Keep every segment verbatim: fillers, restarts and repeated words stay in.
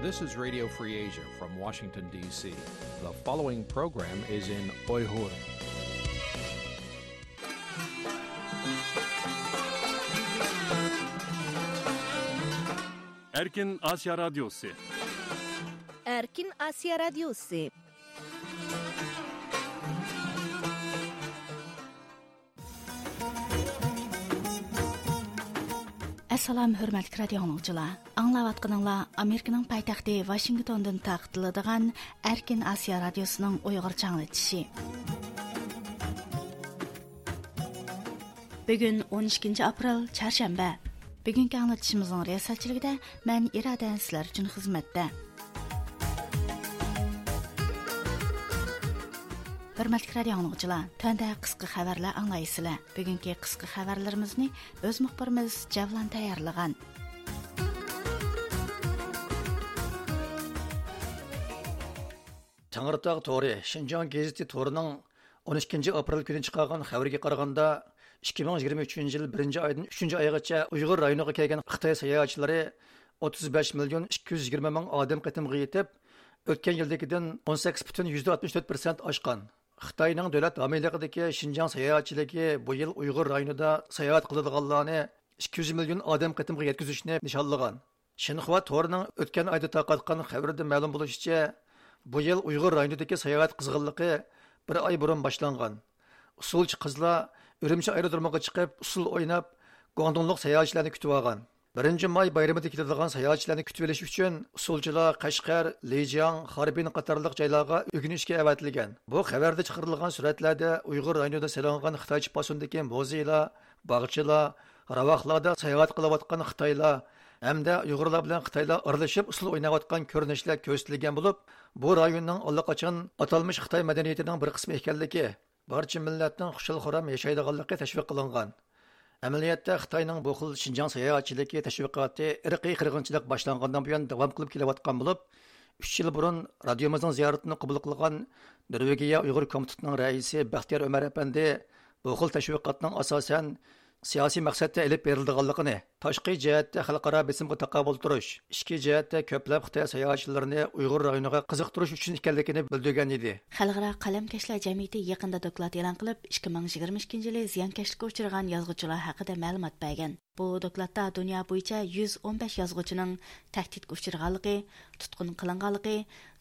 This is Radio Free Asia from Washington, D C. The following program is in Uyghur. Erkin Asya Radyosu. Erkin Asya Radyosu. ئەسسالام، ھۆرمەتلىك رادىيو ئاڭلىغۇچىلار! ئاڭلاۋاتقىنىڭلار ئامېرىكىنىڭ پايتەختى ۋاشىنگتوندىن تارقىتىلىدىغان ئەركىن ئاسىيا رادىيوسىنىڭ ئۇيغۇرچە ئاڭلىتىشى. بۈگۈن ئون ئىككىنچى ئاپرېل، چارشەنبە. بۈگۈنكى ئاڭلىتىشىمىزنىڭ رىياسەتچىلىكىدە مەن ئىرادە سىلەر ئۈچۈن خىزمەتتە. ھۆرمەتلىك رادىيو ئاڭلىغۇچىلار، تۆۋەندە قىسقا خەۋەرلەر ئاڭلايسىلەر. بۈگۈنكى قىسقا خەۋەرلىرىمىزنى ئۆز مۇخبىرىمىز جەۋلان تەييارلىغان. تەڭرىتاغ تورى، شىنجاڭ گېزىتى تورىنىڭ ئون ئىككىنچى ئاپرېل كۈنى چىقارغان خەۋىرىگە قارىغاندا، ئىككى مىڭ يىگىرمە ئۈچىنچى يىل بىرىنچى ئايدىن ئۈچىنچى ئايغىچە ئۇيغۇر رايونىغا كەلگەن خىتاي ساياھەتچىلىرى ئوتتۇز بەش مىليون ئىككى يۈز يىگىرمە مىڭ ئادەم قېتىمغا يېتىپ، ئۆتكەن يىلدىكىدىن ئون سەككىز پۈتۈن يۈزدە ئاتمىش تۆت پىرسەنت ئاشقان. خىتاينىڭ دۆلەت ھامىيلىقىدىكى شىنجاڭ ساياھەتچىلىكى بۇ يىل ئۇيغۇر رايونىدا ساياھەت قىلىدىغانلارنى ئىككى يۈز مىليون ئادەم قېتىمغا يەتكۈزۈشنى نىشانلىغان. شىنخۇا تورىنىڭ ئۆتكەن ئايدا تارقاتقان خەۋىرىدە مەلۇم بولۇشىچە، بۇ يىل ئۇيغۇر رايونىدىكى ساياھەت قىزغىنلىقى بىر ئاي بۇرۇن باشلانغان. ئۇسسۇلچى قىزلار ئۈرۈمچى ئايرودرومىغا چىقىپ، ئۇسسۇل ئويناپ، گۇاڭدۇڭلۇق ساياھەتچىلەرنى كۈتۈۋالغان. بىرىنچى ماي بايرىمىدا كېلىدىغان ساياھەتچىلەرنى كۈتۈۋېلىش ئۈچۈن ئۇسسۇلچىلار قەشقەر، لىجياڭ، خاربىن قاتارلىق جايلارغا ئۆگىنىشكە ئەۋەتىلگەن. بۇ خەۋەردە چىقىرىلغان سۈرەتلەردە ئۇيغۇر رايونىدا سېلىنغان خىتايچە پاسوندىكى مۇزېيلار، باغچىلار، راۋاقلاردا ساياھەت قىلىۋاتقان خىتايلار ھەمدە ئۇيغۇرلار بىلەن خىتايلار ئارىلىشىپ ئۇسسۇل ئويناۋاتقان كۆرۈنۈشلەر كۆرسىتىلگەن بولۇپ، بۇ رايوننىڭ ئاللىقاچان ئاتالمىش خىتاي مەدەنىيىتىنىڭ بىر قىسمى ئىكەنلىكى، بارچە مىللەتنىڭ خۇشال-خۇرام ياشايدىغانلىقى تەشۋىق قىلىنغان. ئەمەلىيەتتە، خىتاينىڭ بۇ خىل شىنجاڭ ساياھەتچىلىكى تەشۋىقاتى ئىرقىي قىرغىنچىلىق باشلانغاندىن بۇيان داۋام قىلىپ كېلىۋاتقان بولۇپ، ئۈچ يىل بۇرۇن رادىيومىزنىڭ زىيارىتىنى قوبۇل قىلغان نورۋېگىيە ئۇيغۇر كومىتېتىنىڭ رەئىسى بەختىيار ئۆمەر ئەپەندى بۇ خىل تەشۋىقاتنىڭ ئاساسەن سىياسىي مەقسەتتە ئېلىپ بېرىلىدىغانلىقىنى، تاشقى جەھەتتە خەلقئارا بېسىمغا تاقابىل تۇرۇش، ئىچكى جەھەتتە كۆپلەپ خىتاي ساياھەتچىلىرىنى ئۇيغۇر رايونىغا قىزىقتۇرۇش ئۈچۈن ئىكەنلىكىنى بىلدۈرگەن ئىدى. خەلقئارا قەلەمكەشلەر جەمئىيىتى يېقىندا دوكلات ئېلان قىلىپ، ئىككى مىڭ يىگىرمە ئىككىنچى يىلى زىيانكەشلىككە ئۇچرىغان يازغۇچىلار ھەققىدە مەلۇمات بەرگەن. بۇ دوكلاتتا دۇنيا بويىچە يۈز ئون بەش يازغۇچىنىڭ تەھدىتكە ئۇچرىغانلىقى، تۇتقۇن قىلىنغانلىقى،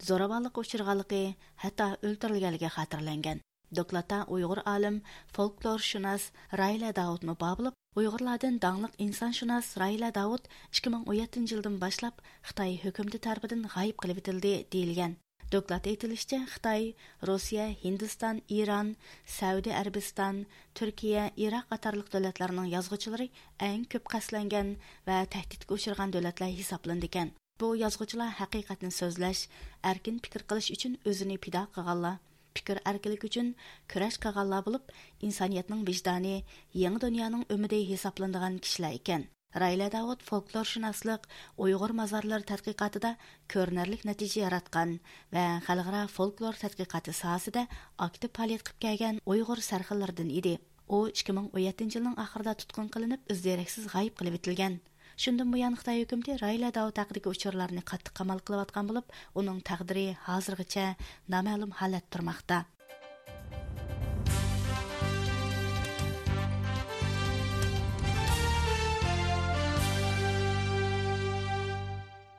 زوراۋانلىققا ئۇچرىغانلىقى، ھەتتا ئۆلتۈرۈلگەنلىكى خاتىرىلەنگەن. دوكلاتتا ئۇيغۇر ئالىم، فولكلورشۇناس رايلە داۋۇتمۇ بار بولۇپ، ئۇيغۇرلاردىن داڭلىق ئىنسانشۇناس رايلە داۋۇت ئىككى مىڭ ئون يەتتىنچى يىلدىن باشلاپ خىتاي ھۆكۈمىتى تەرىپىدىن غايىب قىلىۋېتىلدى، دېيىلگەن. دوكلاتتا ئېيتىلىشىچە، خىتاي، روسىيە، ھىندىستان، ئىران، سەئۇدى ئەرەبىستان، تۈركىيە، ئىراق قاتارلىق دۆلەتلەرنىڭ يازغۇچىلىرى ئەڭ كۆپ قەستلەنگەن ۋە تەھدىتكە ئۇچرىغان دۆلەتلەر ھېسابلىنىدىكەن. بۇ يازغۇچىلار ھەقىقەتنى سۆزلەش، ئەركىن پىكىر قىلىش ئۈچۈن ئۆزىنى پىدا قىلغانلار، پىكىر ئەركىنلىكى ئۈچۈن كۈرەش قىلغانلار بولۇپ، ئىنسانىيەتنىڭ ۋىجدانى، يېڭى دۇنيانىڭ ئۈمىدى ھېسابلىنىدىغان كىشىلەر ئىكەن. رايلە داۋۇت فولكلورشۇناسلىق، ئۇيغۇر مازارلىرى تەتقىقاتىدا كۆرۈنەرلىك نەتىجە ياراتقان ۋە خەلقئارا فولكلور تەتقىقاتى ساھەسىدە ئاكتىپ پائالىيەت قىلىپ كەلگەن ئۇيغۇر سەرخىللىرىدىن ئىدى. ئۇ ئىككى مىڭ ئون يەتتىنچى يىلنىڭ ئاخىرىدا تۇتقۇن قىلىنىپ، ئىز دېرەكسىز غايىب قىلىۋېتىلگەن. شۇندىن بۇيان خىتاي ھۆكۈمىتى رايلە داۋۇت ھەققىدىكى ئۇچۇرلارنى قاتتىق قامال قىلىۋاتقان بولۇپ، ئۇنىڭ تەقدىرى ھازىرغىچە نامەلۇم ھالەتتە تۇرماقتا.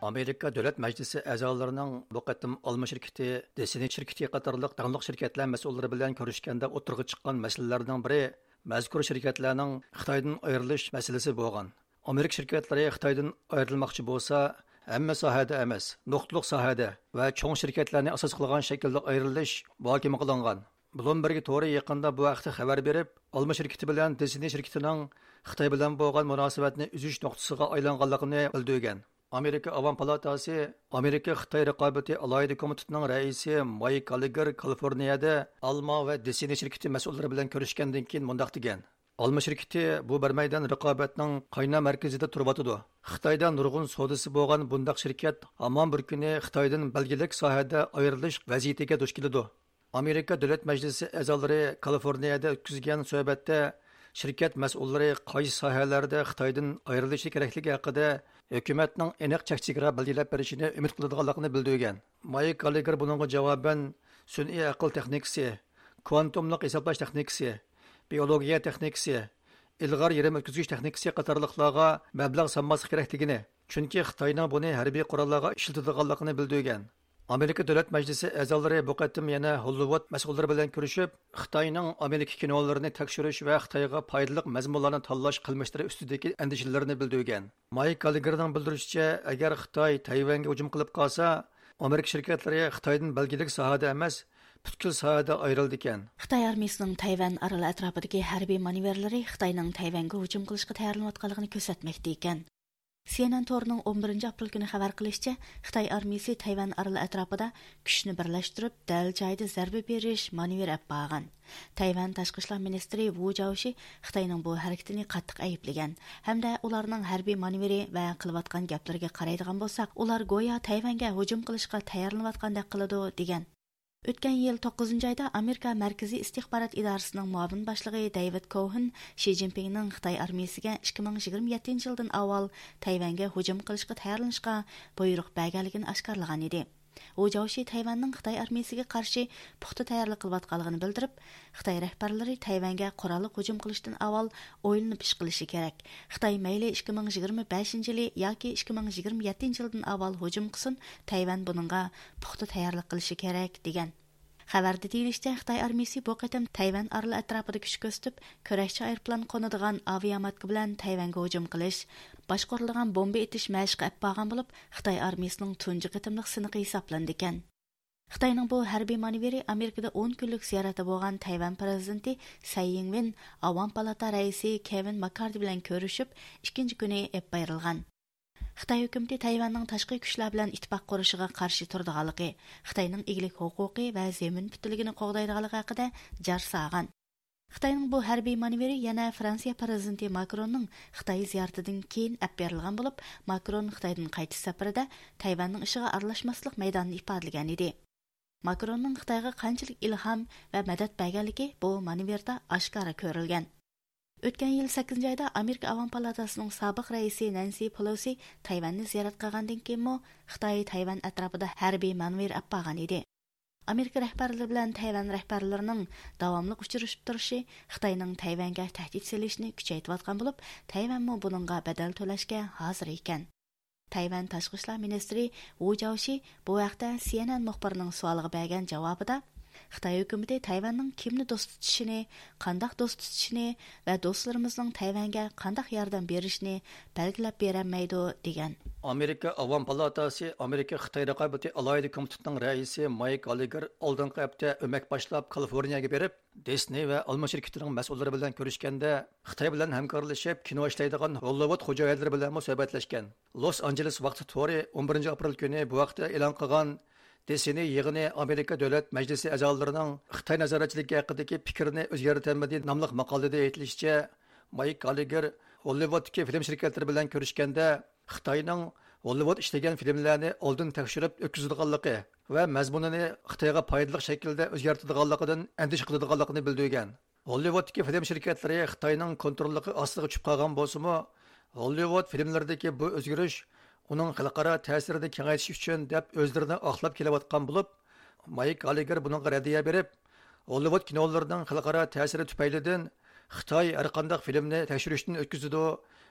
ئامېرىكا دۆلەت مەجلىسى ئەزالىرىنىڭ بۇ قېتىم ئالما شىركىتى، دېسىنى شىركىتى قاتارلىق داڭلىق شىركەتلەر مەسئۇللىرى بىلەن كۆرۈشكەندە ئوتتۇرىغا چىققان مەسىلىلەرنىڭ بىرى مەزكۇر شىركەتلەرنىڭ خىتايدىن ئايرىلىش مەسىلىسى بولغان. ئامېرىكا شىركەتلىرى خىتايدىن ئايرىلماقچى بولسا، ھەممە ساھەدە ئەمەس، نۇقتىلىق ساھەدە ۋە چوڭ شىركەتلەرنى ئاساس قىلغان شەكىلدە ئايرىلىش مۇھاكىمە قىلىنغان. بلومبېرگ تورى يېقىندا بۇ ھەقتە خەۋەر بېرىپ، ئالما شىركىتى بىلەن دېسىنى شىركىتىنىڭ خىتاي بىلەن بولغان مۇناسىۋەتنى ئۈزۈش نۇقتىسىغا ئايلانغانلىقىنى بىلدۈرگەن. ئامېرىكا ئاۋام پالاتاسى ئامېرىكا خىتاي رىقابىتى ئالاھىدە كومىتېتىنىڭ رەئىسى مايك گاللېگېر كالىفورنىيەدە ئالما ۋە دېسىنى شىركىتى مەسئۇللىرى بىلەن كۆرۈشكەندىن كېيىن مۇنداق دېگەن: ئالما شىركىتى بۇ بىر مەيدان رىقابەتنىڭ قاينار مەركىزىدە تۇرۇۋاتىدۇ. خىتايدا نۇرغۇن سودىسى بولغان بۇنداق شىركەت ھامان بىر كۈنى خىتايدىن بەلگىلىك ساھەدە ئايرىلىش ۋەزىيىتىگە دۇچ كېلىدۇ. ئامېرىكا دۆلەت مەجلىسى ئەزالىرى كالىفورنىيەدە ئۆتكۈزگەن سۆھبەتتە شىركەت مەسئۇللىرى قايسى ساھەلەردە خىتايدىن ئايرىلىشى كېرەكلىكى ھەققىدە ھۆكۈمەتنىڭ ئېنىق چەك چېگرا بەلگىلەپ بېرىشىنى ئۈمىد قىلىدىغانلىقىنى بىلدۈرگەن. مايك گاللېگېر بۇنىڭغا جاۋابەن، سۈنئىي ئەقىل تېخنىكىسى، كۋانتوملۇق ھېسابلاش تېخنىكىسى، بىئولوگىيە تېخنىكىسى، ئىلغار يېرىم ئۆتكۈزگۈچ تېخنىكىسى قاتارلىقلارغا مەبلەغ سالماسلىق كېرەكلىكىنى، چۈنكى خىتاينىڭ بۇنى ھەربىي قوراللارغا ئىشلىتىدىغانلىقىنى بىلدۈرگەن. ئامېرىكا دۆلەت مەجلىسى ئەزالىرى بۇ قېتىم يەنە ھوللىۋۇد مەسئۇللىرى بىلەن كۆرۈشۈپ، خىتاينىڭ ئامېرىكا كىنولىرىنى تەكشۈرۈش ۋە خىتايغا پايدىلىق مەزمۇنلارنى تاللاش قىلمىشلىرى ئۈستىدىكى ئەندىشىلىرىنى بىلدۈرگەن. مايك گاللېگېرنىڭ بىلدۈرۈشىچە، ئەگەر خىتاي تەيۋەنگە ھۇجۇم قىلىپ قالسا، ئامېرىكا شىركەتلىرى خىتايدىن بەلگىلىك ساھەدە ئەمەس، پۈتكۈل ساھەدە ئايرىلىدىكەن. خىتاي ئارمىيىسىنىڭ تەيۋەن ئارىلى ئەتراپىدىكى ھەربىي مانېۋىرلىرى خىتاينىڭ تەيۋەنگە ھۇجۇم قىلىشقا تەييارلىنىۋاتقانلىقىنى كۆرسەتمەكتە ئىكەن. سىئېنئېن تورىنىڭ ئون بىرىنچى ئاپرېل كۈنى خەۋەر قىلىشىچە، خىتاي ئارمىيىسى تەيۋەن ئارىلى ئەتراپىدا كۈچنى بىرلەشتۈرۈپ، دەل جايىدا زەربە بېرىش مانېۋىرى ئېلىپ بارغان. تەيۋەن تاشقى ئىشلار مىنىستىرى ۋۇ جاۋشى خىتاينىڭ بۇ ھەرىكىتىنى قاتتىق ئەيىبلىگەن ھەمدە ئۇلارنىڭ ھەربىي مانېۋىرى ۋە قىلىۋاتقان گەپلىرىگە قارايدىغان بولساق، ئۇلار گويا تەيۋەنگە ھۇجۇم قىلىشقا تەييارلىنىۋاتقاندەك قىلىدۇ، دېگەن. ئۆتكەن يىل توققۇزىنچى ئايدا ئامېرىكا مەركىزىي ئىستىخبارات ئىدارىسىنىڭ مۇئاۋىن باشلىقى دەيۋىد كوھېن شى جىنپىڭنىڭ خىتاي ئارمىيىسىگە ئىككى مىڭ يىگىرمە يەتتىنچى يىلدىن ئاۋۋال تەيۋەنگە ھۇجۇم قىلىشقا تەييارلىنىشقا بۇيرۇق بەرگەنلىكىنى ئاشكارىلىغان ئىدى. ۋۇ جاۋشى تەيۋەننىڭ خىتاي ئارمىيىسىگە قارشى پۇختا تەييارلىق قىلىۋاتقانلىقىنى بىلدۈرۈپ، خىتاي رەھبەرلىرى تەيۋەنگە قوراللىق ھۇجۇم قىلىشتىن ئاۋۋال ئويلىنىپ ئىش قىلىشى كېرەك. خىتاي مەيلى ئىككى مىڭ يىگىرمە بەشىنچى يىلى ياكى ئىككى مىڭ يىگىرمە يەتتىنچى يىلدىن ئاۋۋال ھۇجۇم قىلسۇن، تەيۋەن بۇنىڭغا پۇختا تەييارلىق قىلىشى كېرەك، دېگەن. خەۋەردە دېيىلىشىچە، خىتاي ئارمىيىسى بۇ قېتىم تەيۋەن ئارىلى ئەتراپىدا كۈچ كۆرسىتىپ، كۈرەشچى ئايروپىلان قونىدىغان ئاۋىئاماتكا بىلەن تەيۋەنگە ھۇجۇم قىلىش، باشقۇرۇلىدىغان بومبا ئېتىش مەشىقى ئەپ بارغان بولۇپ، خىتاي ئارمىيىسىنىڭ تۇنجى قېتىملىق سىنىقى ھېسابلىنىدىكەن. خىتاينىڭ بۇ ھەربىي مانېۋىرى ئامېرىكىدا ئون كۈنلۈك زىيارەتتە بولغان تەيۋەن پىرېزىدېنتى سەي يىڭۋېن ئاۋام پالاتا رەئىسى كېۋىن ماككاردى بىلەن كۆرۈشۈپ، ئىككىنچى كۈنى ئېلىپ بېرىلغان. خىتاي ھۆكۈمىتى تەيۋەننىڭ تاشقى كۈچلەر بىلەن ئىتتىپاق قۇرۇشىغا قارشى تۇرىدىغانلىقى، خىتاينىڭ ئىگىلىك ھوقۇقى ۋە زېمىن پۈتۈنلۈكىنى قوغدايدىغانلىقى ھەققىدە جار سالغان. خىتاينىڭ بۇ ھەربىي مانېۋىرى يەنە فرانسىيە پىرېزىدېنتى ماكروننىڭ خىتاي زىيارىتىدىن كېيىن ئەپ بېرىلغان بولۇپ، ماكرون خىتايدىن قايتىش سەپىرىدە تەيۋەننىڭ ئىشىغا ئارىلاشماسلىق مەيدانىنى ئىپادىلىگەن ئىدى. ماكروننىڭ خىتايغا قانچىلىك ئىلھام ۋە مەدەت بەرگەنلىكى بۇ مانېۋىردا ئاشكارا كۆرۈلگەن. ئۆتكەن يىل سەككىزىنچى ئايدا ئامېرىكا ئاۋام پالاتاسىنىڭ سابىق رەئىسى نەنسى پېلوسى تەيۋەننى زىيارەت قىلغاندىن كېيىنمۇ خىتاي تەيۋەن ئەتراپىدا ھەربىي مانېۋىر ئەپ بارغان ئىدى. ئامېرىكا رەھبەرلىرى بىلەن تەيۋەن رەھبەرلىرىنىڭ داۋاملىق ئۇچرىشىپ تۇرۇشى خىتاينىڭ تەيۋەنگە تەھدىت سېلىشنى كۈچەيتىۋاتقان بولۇپ، تەيۋەنمۇ بۇنىڭغا بەدەل تۆلەشكە ھازىر ئىكەن. تەيۋەن تاشقى ئىشلار مىنىستىرى ۋۇ جاۋشى بۇ ھەقتە سىئېنئېن مۇخبىرىنىڭ سوئالىغا بەرگەن جاۋابىدا، خىتاي ھۆكۈمىتى تەيۋەننىڭ كىمنى دوست تۇتۇشىنى، قانداق دوست تۇتۇشىنى ۋە دوستلىرىمىزنىڭ تەيۋەنگە قانداق ياردەم بېرىشىنى بەلگىلەپ بېرەلمەيدۇ، دېگەن. ئامېرىكا ئاۋام پالاتاسى ئامېرىكا خىتاي رىقابىتى ئالاھىدە كومىتېتىنىڭ رەئىسى مايك گاللېگېر ئالدىنقى ھەپتە ئۆمەك باشلاپ كالىفورنىيەگە بېرىپ، دىسنېي ۋە ئالما شىركىتىنىڭ مەسئۇللىرى بىلەن كۆرۈشكەندە، خىتاي بىلەن ھەمكارلىشىپ كىنو ئىشلەيدىغان ھوللىۋۇد خوجايىنلىرى بىلەنمۇ سۆھبەتلەشكەن. لوس ئانژېلېس ۋاقتى تورى ئون بىرىنچى ئاپرېل كۈنى بۇ ھەقتە ئېلان قىلغان دىسنېي يىغىنى ئامېرىكا دۆلەت مەجلىسى ئەزالىرىنىڭ خىتاي نازارەتچىلىكى ھەققىدىكى پىكرىنى ئۆزگەرتەلمىدى ناملىق ماقالىدە ئېيتىلىشىچە، مايك گاللېگېر ھوللىۋۇدتىكى فىلىم شىركەتلىرى بىلەن كۆرۈشكەندە، خىتاينىڭ ھوللىۋۇد ئىشلىگەن فىلىملەرنى ئالدىن تەكشۈرۈپ ئۆتكۈزىدىغانلىقى ۋە مەزمۇنىنى خىتايغا پايدىلىق شەكىلدە ئۆزگەرتىدىغانلىقىدىن ئەندىشە قىلىدىغانلىقىنى بىلدۈرگەن. ھوللىۋۇدتىكى فىلىم شىركەتلىرى خىتاينىڭ كونتروللۇقى ئاستىغا چۈشۈپ قالغان بولسىمۇ، ھوللىۋۇد فىلىملىرىدىكى بۇ ئۆزگىرىش ئۇنىڭ خەلقئارا تەسىرىنى كېڭەيتىش ئۈچۈن دەپ ئۆزلىرىنى ئاقلاپ كېلىۋاتقان بولۇپ، مايك گاللېگېر بۇنىڭغا رەددىيە بېرىپ، ھوللىۋۇد كىنولىرىنىڭ خەلقئارا تەسىرى تۈپەيلىدىن خىتاي ھەرقانداق فىلىمنى تەكشۈرۈشتىن ئۆتكۈزىدۇ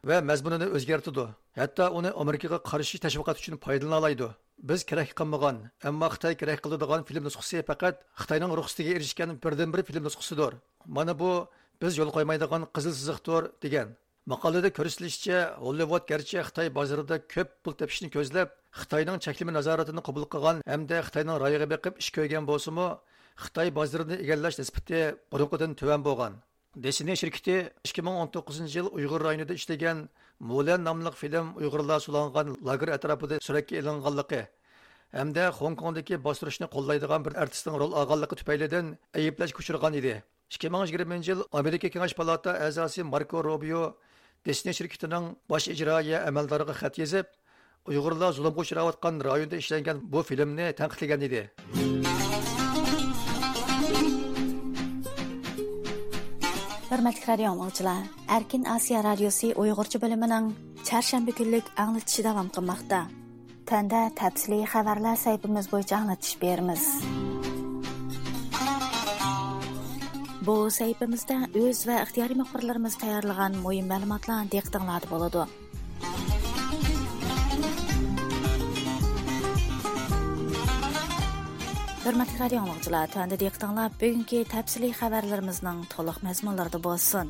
ۋە مەزمۇنىنى ئۆزگەرتىدۇ، ھەتتا ئۇنى ئامېرىكىغا قارشى تەشۋىقات ئۈچۈن پايدىلىنالايدۇ. بىز كېرەك قىلمىغان، ئەمما خىتاي كېرەك قىلىدىغان فىلىم نۇسخىسى پەقەت خىتاينىڭ رۇخسىتىگە ئېرىشكەن بىردىنبىر فىلىم نۇسخىسىدۇر. مانا بۇ بىز يول قويمايدىغان قىزىل سىزىقتۇر، دېگەن. ماقالىدە كۆرسىتىلىشىچە، ھوللىۋۇد گەرچە خىتاي بازىرىدا كۆپ پۇل تېپىشنى كۆزلەپ، خىتاينىڭ چەكلىمە نازارىتىنى قوبۇل قىلغان ھەمدە خىتاينىڭ رايىغا بېقىپ ئىش كۆرگەن بولسىمۇ، خىتاي بازىرىنى ئىگىلەش نىسبىتى بۇرۇنقىدىن تۆۋەن بولغان. دىسنېي شىركىتى ئىككى مىڭ ئون توققۇزىنچى يىل ئۇيغۇر رايونىدا ئىشلىگەن مۇلەن ناملىق فىلىم ئۇيغۇرلار سولانغان لاگېر ئەتراپىدا سۈرەتكە ئېلىنغانلىقى ھەمدە خوڭكوڭدىكى باستۇرۇشنى قوللايدىغان بىر ئارتىسنىڭ رول ئالغانلىقى تۈپەيلىدىن ئەيىبلەشكە ئۇچرىغان ئىدى. ئىككى مىڭ يىگىرمىنچى يىل ئامېرىكا كېڭەش پالاتا ئەزاسى ماركو روبىيو دىسنېي شىركىتىنىڭ باش ئىجرائىيە ئەمەلدارىغا خەت يېزىپ، ئۇيغۇرلار زۇلۇمغا ئۇچراۋاتقان رايوندا ئىشلەنگەن بۇ فىلىمنى تەنقىدلىگەن ئىدى. بىر ھۆرمەتلىك رادىيو ئاڭلىغۇچىلار، ئەركىن ئاسىيا رادىيوسى ئۇيغۇرچە بۆلۈمىنىڭ چارشەنبە كۈنلۈك ئاڭلىتىشى داۋام قىلماقتا. تۆۋەندە تەپسىلىي خەۋەرلەر سەھىپىمىز بويىچە ئاڭلىتىش بېرىمىز. بۇ سەھىپىمىزدە ئۆز ۋە ئىختىيارىي مۇخبىرلىرىمىز تەييارلىغان مۇھىم مەلۇماتلار دىققىتىڭلاردا بولىدۇ. ھۆرمەتلىك رادىيو ئاڭلىغۇچىلار، تۆۋەندە دىققىتىڭلار بۈگۈنكى تەپسىلىي خەۋەرلىرىمىزنىڭ تولۇق مەزمۇنلىرىدا بولسۇن.